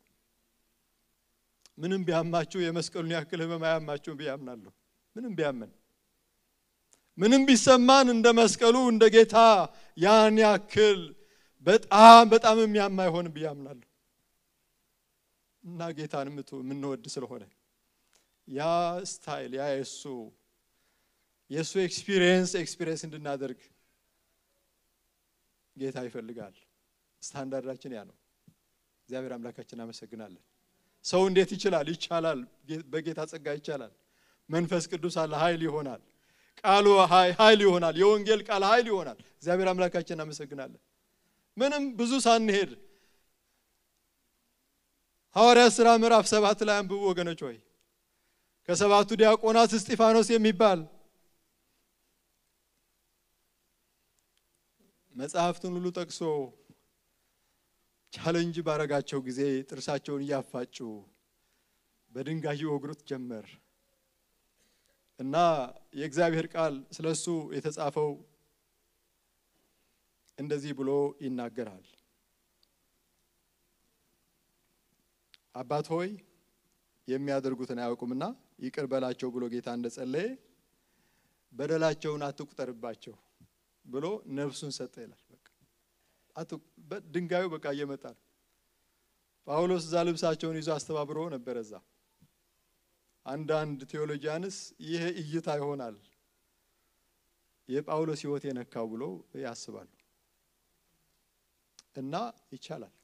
ምንም ቢያማችሁ የመስቀሉን ያክል ህመም አያማችሁ ቢያምናለሁ ምንም ቢያመን ምንም ቢሰማን እንደ መስቀሉ እንደ ጌታ ያን ያክል በጣም የሚያማ ይሆን ቢያምናለሁ እና ጌታን ምንወድ ስለሆነ ያ ስታይል ያ የሱ ኤክስፒሪየንስ እንድናደርግ ጌታ ይፈልጋል ስታንዳርዳችን ያ ነው እግዚአብሔር አምላካችን አመሰግናለን ሰው እንዴት ይችላል በጌታ ጸጋ ይቻላል መንፈስ ቅዱስ አለ ኃይል ይሆናል ቃሉ ኃይል ይሆናል የወንጌል ቃል ኃይል ይሆናል እግዚአብሔር አምላካችን አመሰግናለን ምንም ብዙ ሳንሄድ ሐዋርያት ሥራ ምዕራፍ 7 ላይ አንብቡ ወገኖች ሆይ ከሰባቱ ዲያቆናት እስጢፋኖስ የሚባል መጽሐፍቱን ሁሉ ጠቅሶ ቻሌንጅ ባረጋቸው ጊዜ ጥርሳቸውን ያፋጩ በድንጋይ ወግሩት ጀመር እና የእግዚአብሔር ቃል ስለሱ የተጻፈው እንደዚህ ብሎ ይናገራል አባት ሆይ የሚያደርጉትን አያውቁምና ይቅር በላቸው ብሎ ጌታ እንደጸለየ በደላቸውን አትቁጠርባቸው ብሎ ነፍሱን ሰጠ ይላል በድንጋዩ በቃ እየመጣ ጳውሎስ ዛልብሳቸውን ይዞ አስተባብሮ ነበርዛ አንዳንድ ቴዎሎጂያንስ ይሄ እይታ ይሆናል የጳውሎስ ሕይወት የነካው ብሎ ያስባሉ እና ይቻላል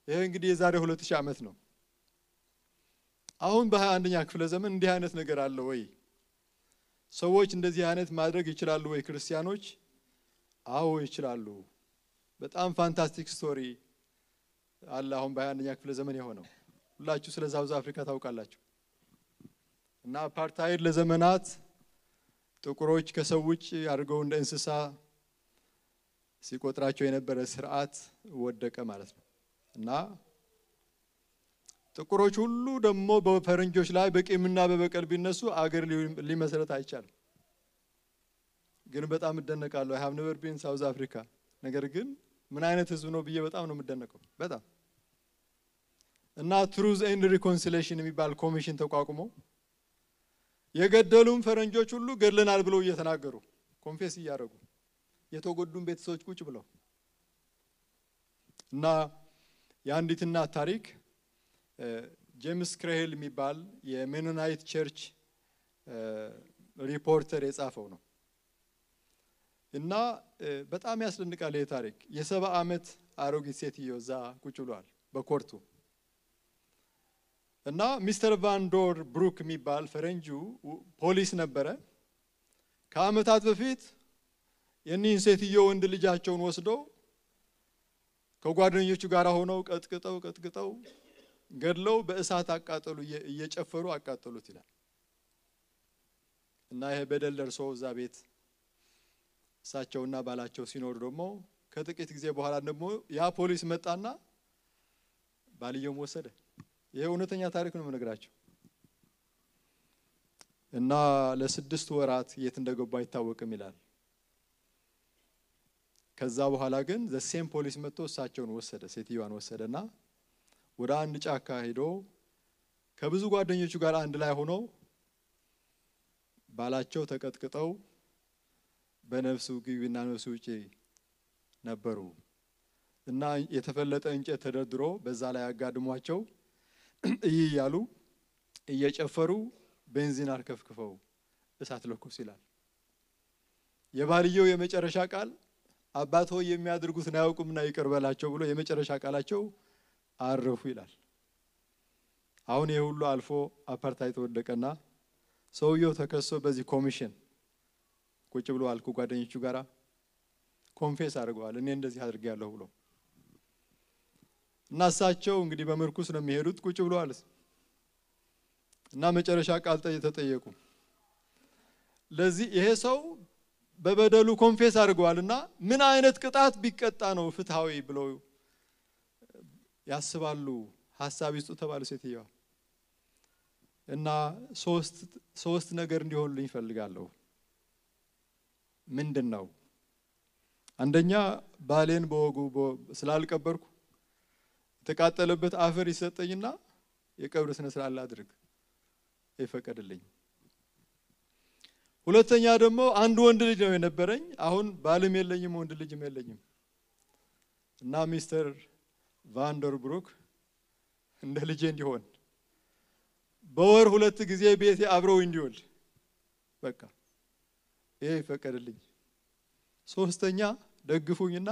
ይሄ እንግዲህ የዛሬ 2000 ዓመት ነው አሁን በ21ኛ ክፍለ ዘመን እንዲህ አይነት ነገር አለ ወይ ሰዎች እንደዚህ አይነት ማድረግ ይችላሉ ወይ ክርስቲያኖች አዎ ይችላሉ በጣም ፋንታስቲክ ስቶሪ አለ አሁን በ21ኛ ክፍለ ዘመን የሆነው ሁላችሁ ስለ ሳውዝ አፍሪካ ታውቃላችሁ እና አፓርታይድ ለዘመናት ጥቁሮች ከሰው ውጭ አድርገው እንደ እንስሳ ሲቆጥራቸው የነበረ ስርዓት ወደቀ ማለት ነው እና ጥቁሮች ሁሉ ደግሞ በፈረንጆች ላይ በቂምና በበቀል ቢነሱ አገር ሊመሰረት አይቻልም ግን በጣም እደነቃለሁ I have never been South Africa ነገር ግን ምን አይነት ህዝብ ነው ብዬ በጣም ነው የምደነቀው በጣም እና Truth and Reconciliation የሚባል ኮሚሽን ተቋቁሞ የገደሉም ፈረንጆች ሁሉ ገድለናል ብለው እየተናገሩ ኮንፌስ እያደረጉ የተጎዱም ቤተሰቦች ቁጭ ብለው እና ያንዲትና ታሪክ ጄምስ ክሬሄል የሚባል የሜኖናይት ቸርች ሪፖርተር የጻፈው ነው እና በጣም ያስደንቃል ይሄ ታሪክ የ70 ዓመት አሮጊት ሴትዮ እዛ ቁጭ ብሏል በኮርቱ እና ሚስተር ቫንዶር ብሩክ የሚባል ፈረንጁ ፖሊስ ነበረ ከአመታት በፊት የኒን ሴትዮ ወንድ ልጃቸውን ወስደው ከጓደኞቹ ጋር ሆነው ቀጥቅጠው ገድለው በእሳት አቃጠሉ እየጨፈሩ አቃጠሉት ይላል እና ይሄ በደል ደርሶ እዛ ቤት እሳቸውና ባላቸው ሲኖር ደግሞ ከጥቂት ጊዜ በኋላ ደግሞ ያ ፖሊስ መጣና ባልየው ወሰደ ይሄ እውነተኛ ታሪክ ነው የምነግራችሁ እና ለ6 ወራት የት እንደገባ አይታወቅም ይላል ከዛ በኋላ ግን the same ፖሊስ መጥቶ እሳቸውን ወሰደ ሴትዮዋን ወሰደና ወደ አንድ ጫካ ሄዶ ከብዙ ጓደኞቹ ጋር አንድ ላይ ሆኖ ባላቸው ተቀጥቅጠው በነፍሱ ግቢና ነፍሱ ውጪ ነበሩ እና የተፈለጠ እንጨት ተደርድሮ በዛ ላይ አጋድሟቸው እያሉ እየጨፈሩ ቤንዚን አርከፍክፈው እሳት ለኮስ ይላል የባልየው የመጨረሻ ቃል አባት ሆይ የሚያደርጉትን አያውቁምና ይቅር በላቸው ብሎ የመጨረሻ ቃላቸው አረፉ ይላል አሁን ይሄ ሁሉ አልፎ አፓርታይድ ተወደቀና ሰውየው ተከሶ በዚህ ኮሚሽን ቁጭ ብሎ አልኩ ጓደኞቹ ጋራ ኮንፌስ አድርገዋል እኔ እንደዚህ አድርጌያለሁ ብሎ እና እሳቸው እንግዲህ በመርኩስ ነው የሚሄዱት ቁጭ ብለዋል እና መጨረሻ ቃል ተጠየቁ ለዚህ ይሄ ሰው በበደሉ ኮንፌስ አድርገዋልና ምን አይነት ቅጣት ቢቀጣ ነው ፍትሃዊ ብለው ያስባሉ ሐሳብ ይስጡ ተባለ ሴትየዋ እና ሶስት ነገር እንዲሆንልኝ ፈልጋለሁ ምንድነው አንደኛ ባሌን በወጉ ስላልቀበርኩ ተቃጠለበት አፈር ይሰጠኝና የቀብር ስነ ስርዓት ላድርግ ይፈቀድልኝ ሁለተኛ ደግሞ አንድ ወንድ ልጅ ነው የነበረኝ አሁን ባልም የለኝም ወንድ ልጅም የለኝም እና ሚስተር ቫንደርብሩክ እንደ ልጅ እንዲሆን በወር ሁለት ጊዜ ቤቴ አብረው እንዲወል በቃ ይሄ ይፈቀድልኝ ሶስተኛ ደግፉኝና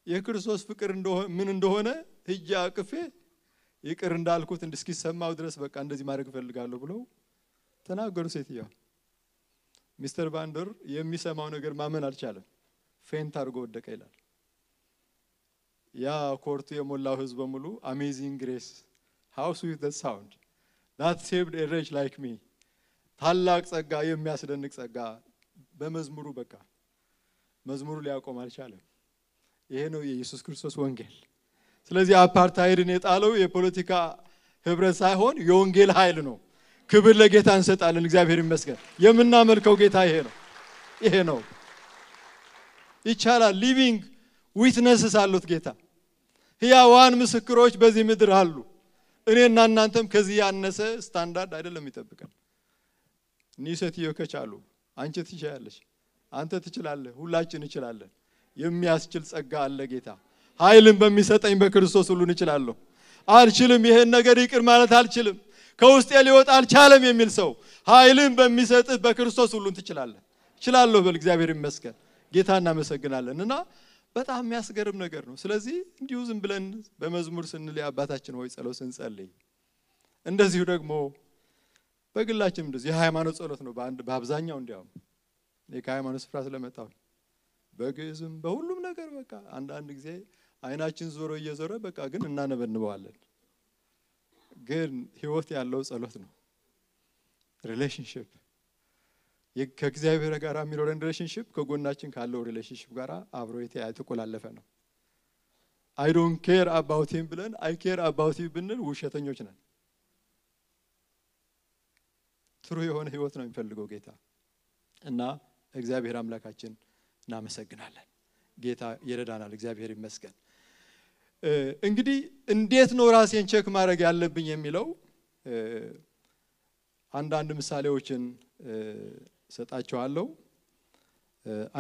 የክርስቶስ ፍቅር ምን እንደሆነ ሂጄ አቅፌ ይቅር እንዳልኩት እንድስኪሰማው ድረስ በቃ እንደዚህ ማድረግ ፈልጋለሁ ብለው ተናገሩ ሴትየዋ ሚስተር ቫንደር የሚሰማው ነገር ማመን አልቻለም ፌንት አድርጎ ወደቀ ይላል ያ ኮርቱ የሞላው ህዝብ በሙሉ አሜዚንግ ግሬስ how sweet the sound that saved a wretch like me ታላቅ ጸጋ የሚያስደንቅ ጸጋ በመዝሙሩ በቃ መዝሙሩ ሊያቆም አልቻለም ይሄ ነው የኢየሱስ ክርስቶስ ወንጌል ስለዚህ አፓርታይድን የጣለው የፖለቲካ ህብረት ሳይሆን የወንጌል ኃይል ነው ክብር ለጌታ እንሰጣለን እግዚአብሔር ይመስገን የምናመልከው ጌታ ይሄ ነው ይቻላል ሊቪንግ ዊትነስስ አሉት ጌታ ሕያዋን ምስክሮች በዚህ ምድር አሉ እኔና እናንተም ከዚህ ያነሰ ስታንዳርድ አይደለም ይጠብቀን ኒሰትዮ ከቻሉ አንቺ ትችያለሽ አንተ ትችላለህ ሁላችን እንችላለን የሚያስችል ጸጋ አለ ጌታ ኃይልን በሚሰጠኝ በክርስቶስ ሁሉን እችላለሁ አልችልም ይሄን ነገር ይቅር ማለት አልችልም ከውስጤ ሊወጣ አልቻለም የሚል ሰው ኃይልን በሚሰጥህ በክርስቶስ ሁሉን ትችላለህ እችላለሁ በል እግዚአብሔር ይመስገን ጌታ እናመሰግናለንና በጣም የሚያስገርም ነገር ነው ስለዚህ እንዲሁ ዝም ብለን በመዝሙር ስንል አባታችን ሆይ ጸሎት ስንጸልይ እንደዚሁ ደግሞ በግላችን እንደዚህ የሃይማኖት ጸሎት ነው በአብዛኛው እንዲያው የሃይማኖት ስፍራ ስለመጣው በግዝም በሁሉም ነገር በቃ አንድ ጊዜ አይናችን ዞሮ እየዞረ በቃ ግን እናነበንበዋለን ግን ህይወት ያለው ጸሎት ነው ሪሌሽንሺፕ ከእግዚአብሔር ጋር የሚኖረን ሪሌሽንሺፕ ከጎናችን ካለው ሪሌሽንሺፕ ጋር አብሮ የተቆላለፈ ነው I don't care about him ብለን I care about you ብንል ውሸተኞች ነን ትሩ የሆነ ህይወት ነው የሚፈልገው ጌታ እና እግዚአብሔር አምላካችን እናመሰግናለን ጌታ ይረዳናል እግዚአብሔር ይመስገን እንግዲህ እንዴት ነው ራሴን ቼክ ማድረግ ያለብኝ የሚለው አንዳንድ ምሳሌዎችን ሰጣቸዋለሁ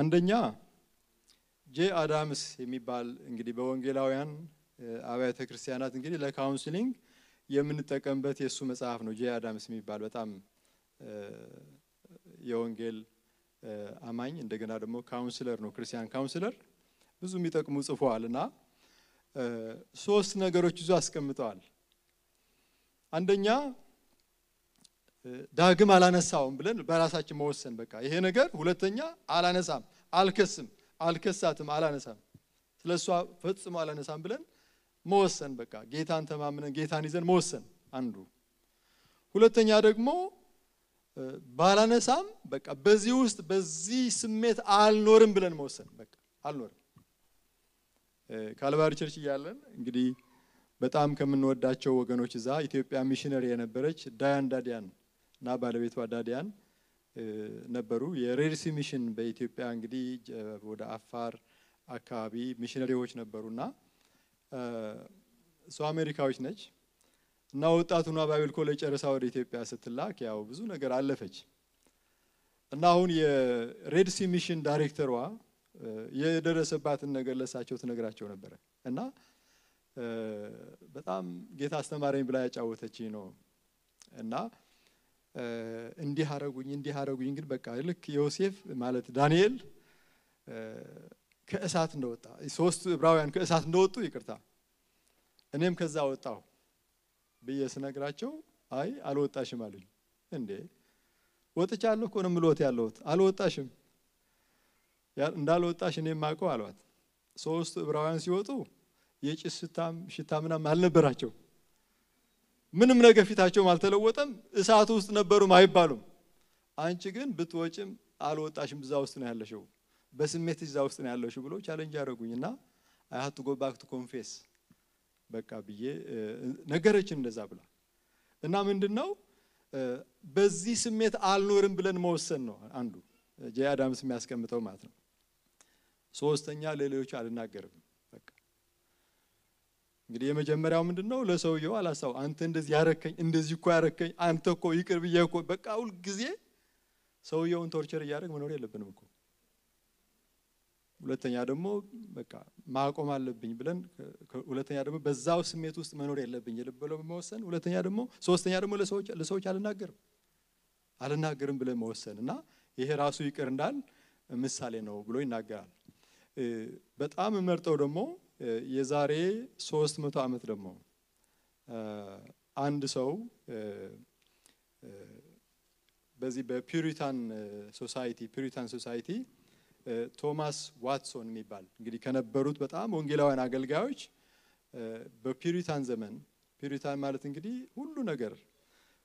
አንደኛ ጄ አዳምስ የሚባል እንግዲህ በወንጌላውያን አብያተ ክርስቲያናት እንግዲህ ለካውንስሊንግ የምንጠቀምበት የሱ መጽሐፍ ነው ጄ አዳምስ የሚባል በጣም የወንጌል አማኝ እንደገና ደግሞ ካውንስለር ነው ክርስቲያን ካውንስለር ብዙ የሚጠቅሙ ጽፏልና ሶስት ነገሮች ይዞ አስቀምጠዋል አንደኛ ዳግም አላነሳውም ብለን በራሳችን መወሰን በቃ ይሄ ነገር ሁለተኛ አላነሳም አልከሳትም አላነሳም ስለሷ ፈጽሞ አላነሳም ብለን መወሰን በቃ ጌታን ተማምነን ጌታን ይዘን መወሰን አንዱ ሁለተኛ ደግሞ ባላነሳም በቃ በዚህ ውስጥ በዚህ ስሜት አልኖርም ብለን መወሰን በቃ አልኖርም ካልቫሪ ቸርች ያለን እንግዲህ በጣም ከምንወዳቸው ወገኖች እዛ ኢትዮጵያ ሚሽነሪ የነበረች ዳያን ዳዲያን እና ባለቤቷ ዳዲያን ነበሩ የሬድሲ ሚሽን በኢትዮጵያ እንግዲህ ወደ አፋር አካባቢ ሚሽነሪዎች ነበሩና ሶ አሜሪካዎች ነች እና ወጣቱና ባይብል ኮሌጅ ጨርሳ ወደ ኢትዮጵያ ስትላክ ያው ብዙ ነገር አለፈች እና አሁን የሬድሲ ሚሽን ዳይሬክተሯ የደረሰባትን ነገር ለሳቸው ተነግራቸው ነበር እና በጣም ጌታ አስተማረኝ ብላ ያጫወተችኝ ነው እና እንዲህ አረጉኝ ግን በቃ ልክ ዮሴፍ ማለት ዳንኤል ከእሳት እንደወጣ ሶስት ዕብራውያን ከእሳት እንደወጡ ይቅርታ እኔም ከዛ ወጣው በየስነግራቸው አይ አልወጣሽም አሉኝ እንዴ ወጥቻለሁ እኮ ነው ምሎት ያለውት አልወጣሽም እንዳልወጣሽ እኔ ማቀው አሏት። ሶስት ዕብራውያን ሲወጡ የጭስ ሽታ ምናምን አልነበራቸው። ምንም ነገር ፊታቸው አልተለወጠም። እሳት ውስጥ ነበሩም አይባሉም። አንቺ ግን ብትወጪም አልወጣሽም እዛ ውስጥ ነው ያለሽው፣ በስሜት እዛ ውስጥ ነው ያለሽው ብሎ ቻሌንጅ ያደረጉኝና I had to go back to confess በቃ ብዬ ነገረችን እንደዛ ብላ እና ምንድነው በዚህ ስሜት አልኖርም ብለን መወሰን ነው አንዱ ጄ አዳምስ የሚያስቀምጠው ማለት ነው። ሶስተኛ ለሌሎች አልናገርም በቃ እንግዲህ የመጀመሪያው ምንድነው ለሰውየው አላሳው አንተ እንደዚህ ያረከኝ እንደዚህ እኮ ያረከኝ አንተ እኮ ይቅር ብዬ እኮ በቃ ሁሉ ጊዜ ሰውየውን ቶርቸር ያደርግ መኖር የለብንም እኮ። ሁለተኛ ደግሞ በቃ ማቆም አለብኝ ብለን ሁለተኛ ደግሞ በዛው ስሜት ውስጥ መኖር የለብኝ ልብለው መወሰን። ሁለተኛ ደግሞ ሶስተኛ ደግሞ ለሰዎች አልናገርም ብለን መወሰንና ይሄ ራሱ ይቅር እንዳል ምሳሌ ነው ብሎ ይናገራል። በጣም መርጠው ደግሞ የዛሬ 300 ዓመት ደግሞ አንድ ሰው በዚህ በፒሪታን ሶሳይቲ ቶማስ ዋትሶን የሚባል እንግዲህ ከነበሩት በጣም ወንጌላውያን አገልጋዮች በፒሪታን ዘመን ፒሪታን ማለት እንግዲህ ሁሉ ነገር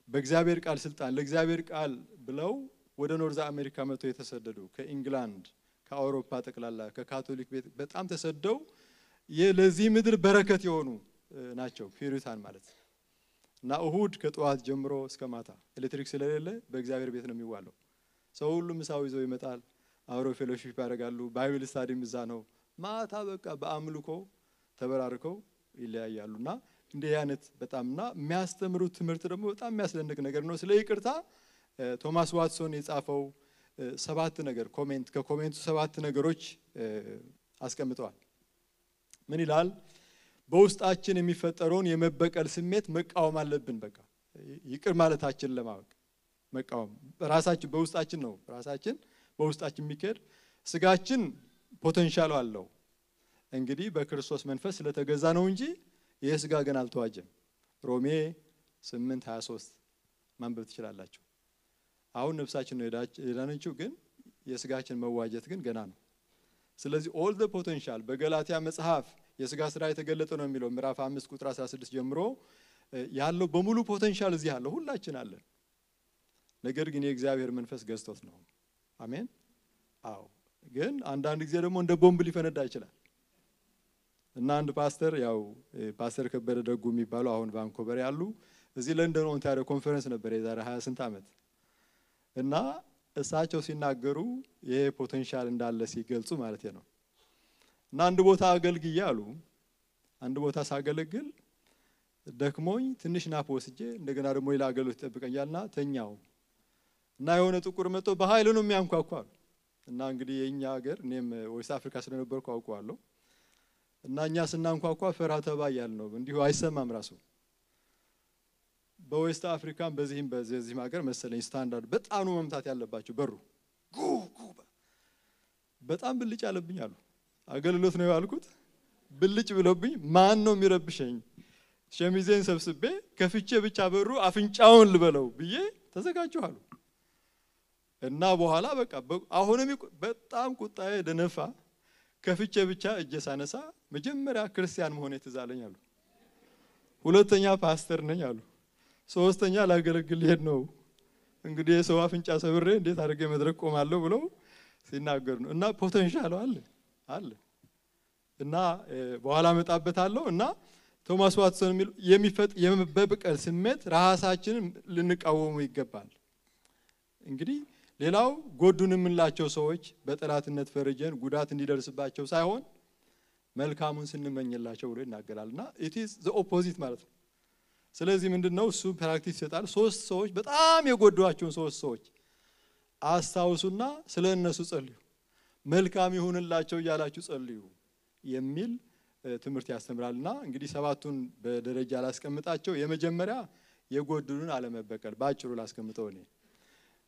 በእግዚአብሔር ቃል ስልጣን ለእግዚአብሔር ቃል ብለው ወደ ኖርዝ አሜሪካ መጥተው የተሰደዱ ከኢንግላንድ ከአውሮፓ ጠቅላላ ከካቶሊክ ቤት በጣም ተሰደው የለዚህ ምድር በረከት የሆኑ ናቸው ፒሪታን ማለት። እና እሁድ ከጧት ጀምሮ እስከ ማታ ኤሌክትሪክ ስለሌለ በእግዚአብሔር ቤት ነው የሚዋለው። ሰው ሁሉ ምሳው ይዘው ይመጣል፣ አብረው ፌሎሺፕ ያደርጋሉ፣ ባይብል ስታዲም እዛ ነው። ማታ በቃ በአምልኮ ተበራርከው ይለያያሉና እንደ ያነት በጣምና የሚያስተምሩት ትምህርት ደግሞ በጣም የሚያስደንቅ ነገር ነው። ስለ ይቅርታ ቶማስ ዋትሶን የጻፈው 7 ነገር ከኮሜንቱ 7 ነገሮች አስቀምጠዋል። ምን ይላል? በውስጣችን የሚፈጠረውን የመበቀል ስሜት መቃወም አለብን። በቃ ይቅር ማለታችን ለማወቅ መቃወም ራሳችን በውስጣችን ነው። ራሳችን በውስጣችን የሚከድ ስጋችን ፖቴንሻል አለው እንግዲህ በክርስቶስ መንፈስ ስለተገዛ ነው እንጂ የስጋ ገና አልተዋጀም። ሮሜ 8:23 ማንበብ ትችላላችሁ። አሁን ነፍሳችን ነው የዳነችው ግን የስጋችን መዋጀት ግን ገና ነው። ስለዚህ all the potential በገላትያ መጽሐፍ የስጋ ስራ የተገለጠ ነው የሚለው ምዕራፍ 5 ቁጥር 16 ጀምሮ ያለው በሙሉ ፖቴንሻል እዚህ ያለው ሁላችን አለን። ነገር ግን የእግዚአብሔር መንፈስ ገዝቶት ነው። አሜን። አዎ ግን አንዳንድ ጊዜ ደግሞ እንደ ቦምብ ሊፈነዳ ይችላል። እና አንድ ፓስተር ያው ፓስተር ከበደ ደጉ የሚባሉ አሁን ቫንኮቨር ያሉ እዚህ ለንደን ኦንታሪዮ ኮንፈረንስ ነበር የዛሬ 28 ዓመት እና እሳቸው ሲናገሩ ይሄ ፖቴንሻል እንዳለ ሲገልጹ ማለት ነው። እና አንድ ቦታ አገልግዬ አሉ አንድ ቦታ ሳገለግል ደክሞኝ ትንሽ ናፕ ወስጄ እንደገና ደግሞ ሌላ አገልግሎት ተጠብቀኛልና ተኛው እና የሆነ ጥቁር መጥቶ በኃይል ነው የሚያንኳኳው እና እንግዲህ የኛ ሀገር እኔም ዌስት አፍሪካ ስለነበርኩ አውቀዋለሁ እና እኛ ስናንኳኳ ፈራ ተባ ያልነው እንዲሁ አይሰማም ራሱ በዌስት አፍሪካም በዚህም ሀገር መሰለኝ ስታንዳርድ በጣም ነው መምታት ያለባቸው በሩ በጣም ብልጭ አለብኝ አሉ። አገልግሎት ነው ያልኩት ብልጭ ብሎብኝ ማን ነው የሚረብሸኝ ሸሚዜን ሰብስቤ ከፍቼ ብቻ በሩ አፍንጫውን ልበለው ብዬ ተዘጋጀሁ አሉ። እና በኋላ በቃ አሁንም በጣም ቁጣዬ ደነፋ ከፍቼ ብቻ እጄ ሳነሳ መጀመሪያ ክርስቲያን መሆኔ ተዛለኝ አሉ። ሁለተኛ ፓስተር ነኝ አሉ። ሶስተኛ ላገለግል ሄድ ነው እንግዲህ ሰው አፍንጫ ሰብሬ እንዴት አድርጌ መድረክ ቆማለሁ ብለው ሲናገሩ ነው። እና ፖቴንሻል አለ እና በኋላ መጣበታለሁ እና ቶማስ ዋትሰን የሚፈጥ የመበቀል ስሜት ራሳችንን ልንቃወሙ ይገባል። እንግዲህ ሌላው ጎዱን የምንላቸው ሰዎች በጠላትነት ፈርጀን ጉዳት እንዲደርስባቸው ሳይሆን መልካሙን ስንመኝላቸው ብሎ ይናገራልና it is the opposite ማለት ነው። ስለዚህ ምንድነው እሱ ፕራክቲስ ይሰጣል። 3 ሰዎች በጣም የጎዷቸውን 3 ሰዎች አስታውሱና ስለነሱ ጸልዩ መልካም ይሁንላቸው ያላችሁ ጸልዩ የሚል ትምህርት ያስተምራልና እንግዲህ 7ቱን በደረጃ ላስቀምጣቸው። የመጀመሪያ የጎዱንን አለመበቀል ባጭሩ ላስቀምጠው እኔ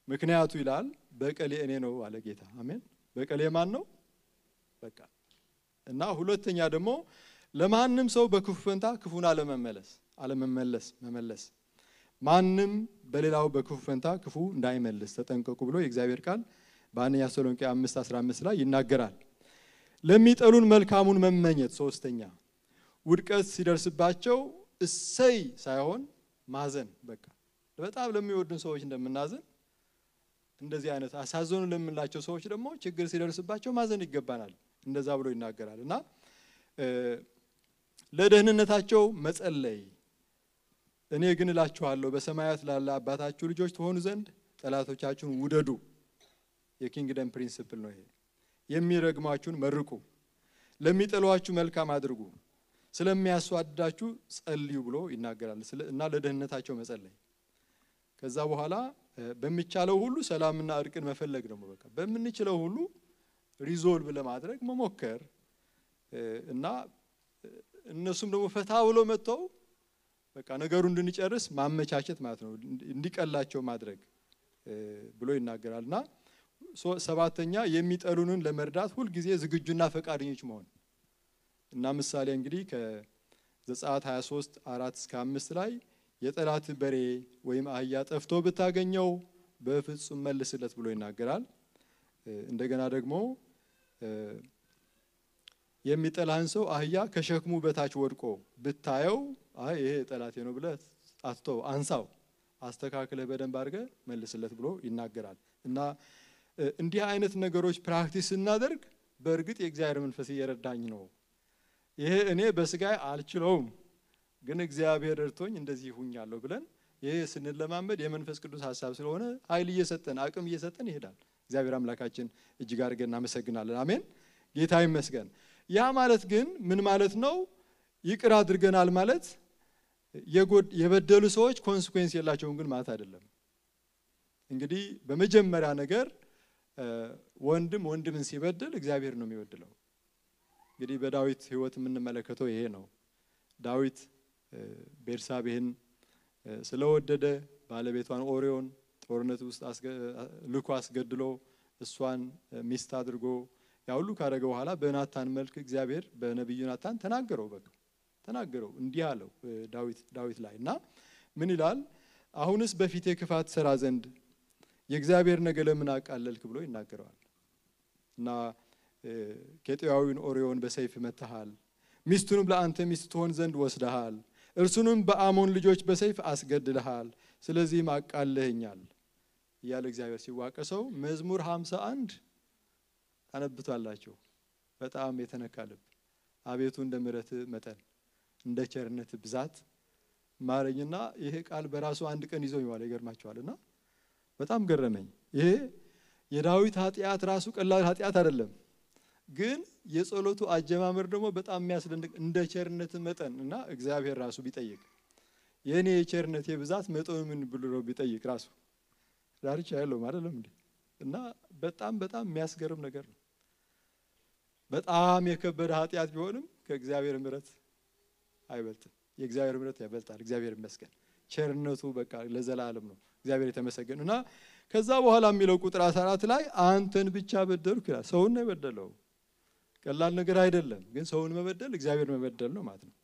ምክንያቱ ይላል በቀሌ እኔ ነው አለ ጌታ። አሜን። በቀሌ ማን ነው? በቃ እና ሁለተኛ ደግሞ ለማንም ሰው በክፉ ፈንታ ክፉን መመለስ ማንም በሌላው በክፉ ፈንታ ክፉ እንዳይመልስ ተጠንቀቁ ብሎ የእግዚአብሔር ቃል በአንደኛ ተሰሎንቄ 5:15 ላይ ይናገራል። ለሚጠሉን መልካሙን መመኘት ሶስተኛ ውድቀት ሲደርስባቸው እሰይ ሳይሆን ማዘን በቃ በጣም ለሚወዱን ሰዎች እንደምናዘን እንደዚህ አይነት አሳዘኑ ለምንላቸው ሰዎች ደግሞ ችግር ሲደርስባቸው ማዘን ይገባናል እንደዛ ብሎ ይናገራልና ለደህንነታቸው መጸለይ እኔ ግን እላችኋለሁ በሰማያት ላለ አባታችሁ ልጆች ትሆኑ ዘንድ ጠላቶቻችሁን ውደዱ የኪንግደም ፕሪንሲፕል ነው ይሄ የሚረግማችሁን መርቁ ለሚጠሏችሁ መልካም አድርጉ ስለሚያስዋድዳችሁ ጸልዩ ብሎ ይናገራል እና ለደህንነታቸው መጸለይ ከዛ በኋላ በሚቻለው ሁሉ ሰላምና እርቅን መፈለግ ነው በቃ በመንችለው ሁሉ ሪዞልቭ ለማድረግ መሞከር እና እነሱም ደግሞ ፈታ ብሎ መጥተው በቃ ነገሩን እንድንጨርስ ማመቻቸት ማለት ነው እንዲቀላቸው ማድረግ ብሎ ይናገራልና ሰባተኛ የሚጠሉንን ለመርዳት ሁሉ ጊዜ ዝግጁና ፈቃደኞች መሆን እና ምሳሌ እንግዲህ ከዘጸአት 23:4-5 ላይ የጠላት በሬ ወይም አህያ ጠፍቶ ብታገኘው በፍጹም መልስለት ብሎ ይናገራል እንደገና ደግሞ የሚጠላህን ሰው አህያ ከሸክሙ በታች ወድቆ ብታየው አይ ይሄ ጠላቴ ነው ብለህ አትተው አንሳው አስተካክለህ በደንብ አድርገህ መልስለት ብሎ ይናገራል እና እንዲህ አይነት ነገሮች ፕራክቲስ እናደርግ በእርግጥ የእግዚአብሔር መንፈስ እየረዳኝ ነው ይሄ እኔ በስጋይ አልችለውም ግን እግዚአብሔር እርቶኝ እንደዚህ ሆኛለሁ ብለን ይሄ ስንለማመድ የመንፈስ ቅዱስ ሐሳብ ስለሆነ ኃይል እየሰጠን አቅም እየሰጠን ይሄዳል እግዚአብሔር አምላካችን እጅግ አድርገን እናመሰግናለን አሜን ጌታ ይመስገን ያ ማለት ግን ምን ማለት ነው ይቅር አድርገናል ማለት የበደሉ ሰዎች ኮንሲኩዌንስ የላቸውም ግን ማለት አይደለም እንግዲህ በመጀመሪያ ነገር ወንድምን ሲበድል እግዚአብሔር ነው የሚወድለው እንግዲህ በዳዊት ህይወት የምንመለከተው ይሄ ነው ዳዊት ቤርሳቤህን ስለወደደ ባለቤቷን ኦሪዮን ጦርነት ውስጥ ልኮ አስገድሎ እሷን ሚስት አድርጎ ያውሉ ካረገ በኋላ በናታን መልክ እግዚአብሔር በነብዩ ናታን ተናገረው እንዲህ አለው ዳዊት ላይና ምን ይላል አሁንስ በፊቴ ክፋት ሰራ ዘንድ የእግዚአብሔር ነገር ለምን አቃለልክ ብሎ ይናገራል እና ኬጢያዊውን ኦሪዮን በሰይፍ መተሃል ሚስቱንም ለአንተ ሚስት ትሆን ዘንድ ወስደሃል እርሱንም በአሞን ልጆች በሰይፍ አስገድለሃል ስለዚህ ማቃለህኛል ያለ እግዚአብሔር ሲዋቀሰው መዝሙር 51 ታነብቷላችሁ በጣም የተነካለብ አቤቱ እንደ ምሕረት መጠን እንደ ቸርነት ብዛት ማረኝና ይሄ ቃል በራሱ አንድ ቀን ይዞ ይዋል ይገርማችኋልና በጣም ገረመኝ ይሄ የዳዊት ኃጢያት ራሱ ቀላል ኃጢያት አይደለም ግን የጸሎቱ አጀማመር ደግሞ በጣም የሚያስደንቅ እንደ ቸርነት መጠን እና እግዚአብሔር ራሱ ቢጠይቅ የኔ የቸርነት የብዛት መጠኑ ምን ብሎ ቢጠይቅ ራሱ ዳርቻ ያለው አይደለም እንዴ እና በጣም የሚያስገርም ነገር ነው በጣም የከበደ ኃጢያት ቢሆንም ከእግዚአብሔር ምሕረት አይበልጥም የእግዚአብሔር ምሕረት ያበልጣል እግዚአብሔር ይመስገን ቸርነቱ በቃ ለዘላለም ነው እግዚአብሔር የተመሰገነና ከዛ በኋላ የሚለው ቁጥር 14 ላይ አንተን ብቻ በደልኩ ይላል ሰውን ነው የበደለው ቀላል ነገር አይደለም ግን ሰውን መበደል እግዚአብሔር መበደል ነው ማለት ነው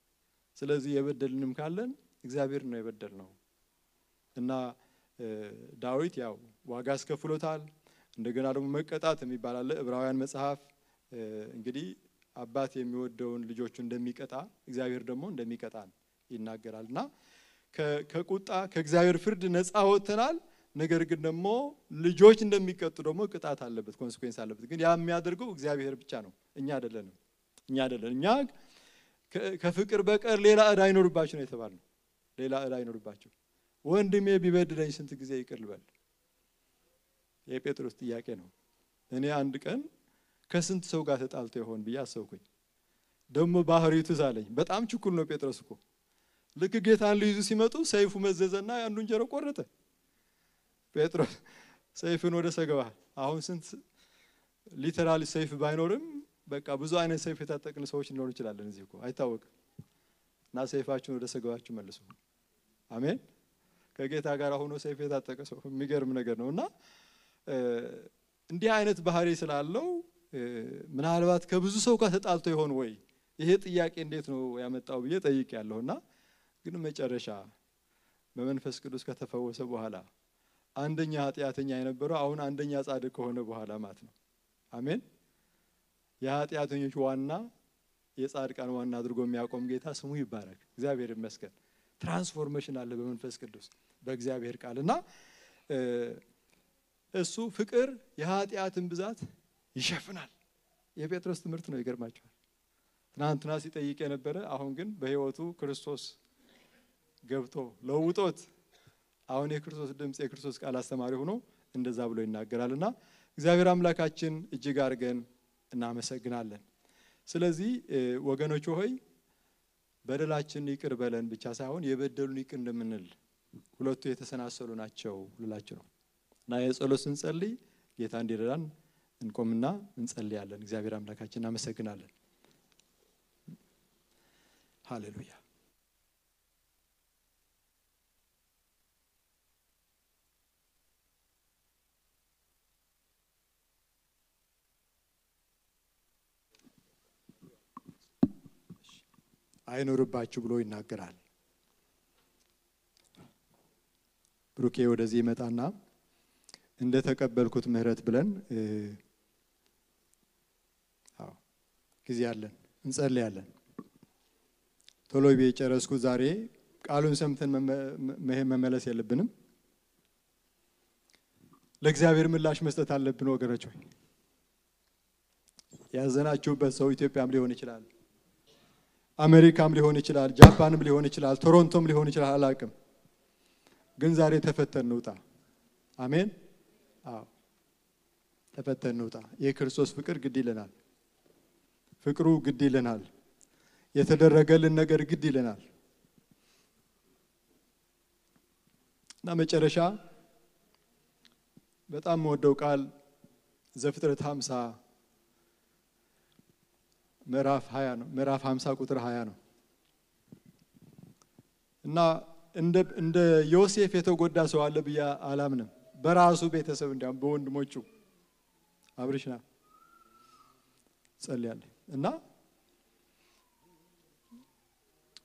ስለዚህ የበደልንም ካለን እግዚአብሔር ነው የበደልነው እና ዳዊት ያው ዋጋ አስከፍሎታል እንደገና ደግሞ መቀጣት የሚባል አለ ዕብራውያን መጽሐፍ እንግዲህ አባት የሚወደውን ልጆቹ እንደሚቀጣ እግዚአብሔር ደግሞ እንደሚቀጣን ይናገራልና ከቁጣ ከእግዚአብሔር ፍርድ ነፃ ወጥተናል ነገር ግን ደግሞ ልጆች እንደሚቀጡ ደግሞ ቅጣት አለበት ኮንሲኩዌንስ አለበት ግን ያ የሚያደርገው እግዚአብሔር ብቻ ነው እኛ አይደለም እኛ ከፍቅር በቀር ሌላ ዕዳ አይኖርባችሁ ነው የተባለው ሌላ ዕዳ አይኖርባችሁ ወንድሜ ቢበድለኝ ስንት ጊዜ ይቅር ልበል የጴጥሮስ ጥያቄ ነው እኔ አንድ ቀን ከስንት ሰው ጋር ተጣልቶ ይሆን ብዬ አሰብኩኝ ደግሞ ባህሪው ትዛለኝ በጣም ችኩል ነው ጴጥሮስ እኮ ልክ ጌታን ሊይዙ ሲመጡ ሰይፉ መዘዘና አንዱን ጀሮ ቆረጠ ጴጥሮስ ሰይፉን ወደ ሰገባ አሁን ስንት ሊተራሊ ሰይፍ ባይኖርም በቃ ብዙ አይነት ሰይፍ የታጠቅን ሰዎች ሊኖር ይችላል እዚህ እኮ አይታወቅም እና ሰይፋችሁን ወደ ሰገባችሁ መልሱ አሜን ከጌታ ጋር ሆኖ ሰይፍ የታጠቀ ሰው የሚገርም ነገር ነውና እንዲህ አይነት ባህሪ ስላለው ምናልባት ከብዙ ሰው ጋር ተጣልቶ ይሆን ወይ ይሄ ጥያቄ እንዴት ነው ያመጣው ብዬ ጠይቄያለሁና ግን መጨረሻ በመንፈስ ቅዱስ ከተፈወሰ በኋላ አንደኛ ኃጢአተኛ የነበረው አሁን አንደኛ ጻድቅ ከሆነ በኋላ ማለት ነው። አሜን። የኃጢአተኞች ዋና የጻድቃን ዋና አድርጎ የሚያቆም ጌታ ስሙ ይባረክ። እግዚአብሔር ይመስገን። ትራንስፎርሜሽን አለ በመንፈስ ቅዱስ በእግዚአብሔር ቃልና እሱ ፍቅር የኃጢአትን ብዛት ይሸፍናል። የጴጥሮስ ትምህርት ነው። ይገርማችኋል። ትናንትና ሲጠይቅ የነበረ አሁን ግን በህይወቱ ክርስቶስ ገብቶ ለውጦት አሁን የክርስቶስ ድምጽ የክርስቶስ ቃል አስተማሪ ሆኖ እንደዛ ብሎ ይናገራልና እግዚአብሔር አምላካችን እጅግ አድርገን እናመሰግናለን። ስለዚህ ወገኖች ሆይ በደላችን ይቅር በለን ብቻ ሳይሆን የበደሉን ይቅር እንደምንል ሁለቱ የተሰናሰሉ ናቸው ልላችሁ ነው። እና የጸሎት ስንጸልይ ጌታ እንዲረዳን እንቆምና እንጸልያለን። እግዚአብሔር አምላካችን እናመሰግናለን። ሃሌሉያ። አይኖርባችሁ ብሎ ይናገራል። ብሩኬ ወደዚህ ይመጣና እንደ ተቀበልኩት ምህረት ብለን ጊዜ አለን እንጸልያለን። ቶሎ ቢጨረስኩ ዛሬ ቃሉን ሰምተን መመለስ የለብንም። ለእግዚአብሔር ምላሽ መስጠት አለብን ወገኖች ሆይ። ያዘናችሁበት ሰው ኢትዮጵያም ሊሆን ይችላል፣ አሜሪካም ሊሆን ይችላል፣ ጃፓንም ሊሆን ይችላል፣ ቶሮንቶም ሊሆን ይችላል፣ አላቅም። ግን ዛሬ ተፈተን እንውጣ። አሜን። አዎ ተፈተን እንውጣ። የክርስቶስ ፍቅር ግድ ይለናል። ፍቅሩ ግድ ይለናል። የተደረገልን ነገር ግድ ይለናል። እና መጨረሻ በጣም ወደው ቃል ዘፍጥረት 50 ምዕራፍ 20 ነው። ምዕራፍ 50 ቁጥር 20 ነው። እና እንደ ዮሴፍ የተጎዳ ሰው አለ ብዬ አላምንም። በራሱ ቤተሰብ እንዲያም በወንድሞቹ አብርሽና ጸልያለሁ። እና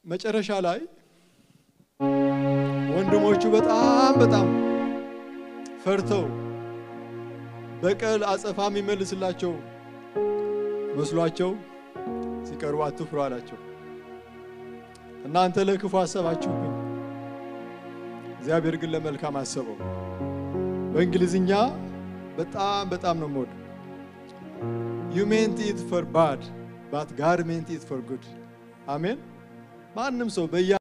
መጨረሻ ላይ ወንድሞቹ በጣም ፈርተው በቀል አጸፋም ይመልስላቸው መስሏቸው ሲቀርቡ አትፍሩ አላቸው። እናንተ ለክፉ አሰባችሁብኝ፣ እግዚአብሔር ግን ለመልካም አሰበው። በእንግሊዝኛ በጣም ነው ሞድ you meant it for bad but God meant it for good። አሜን። ማንም ሰው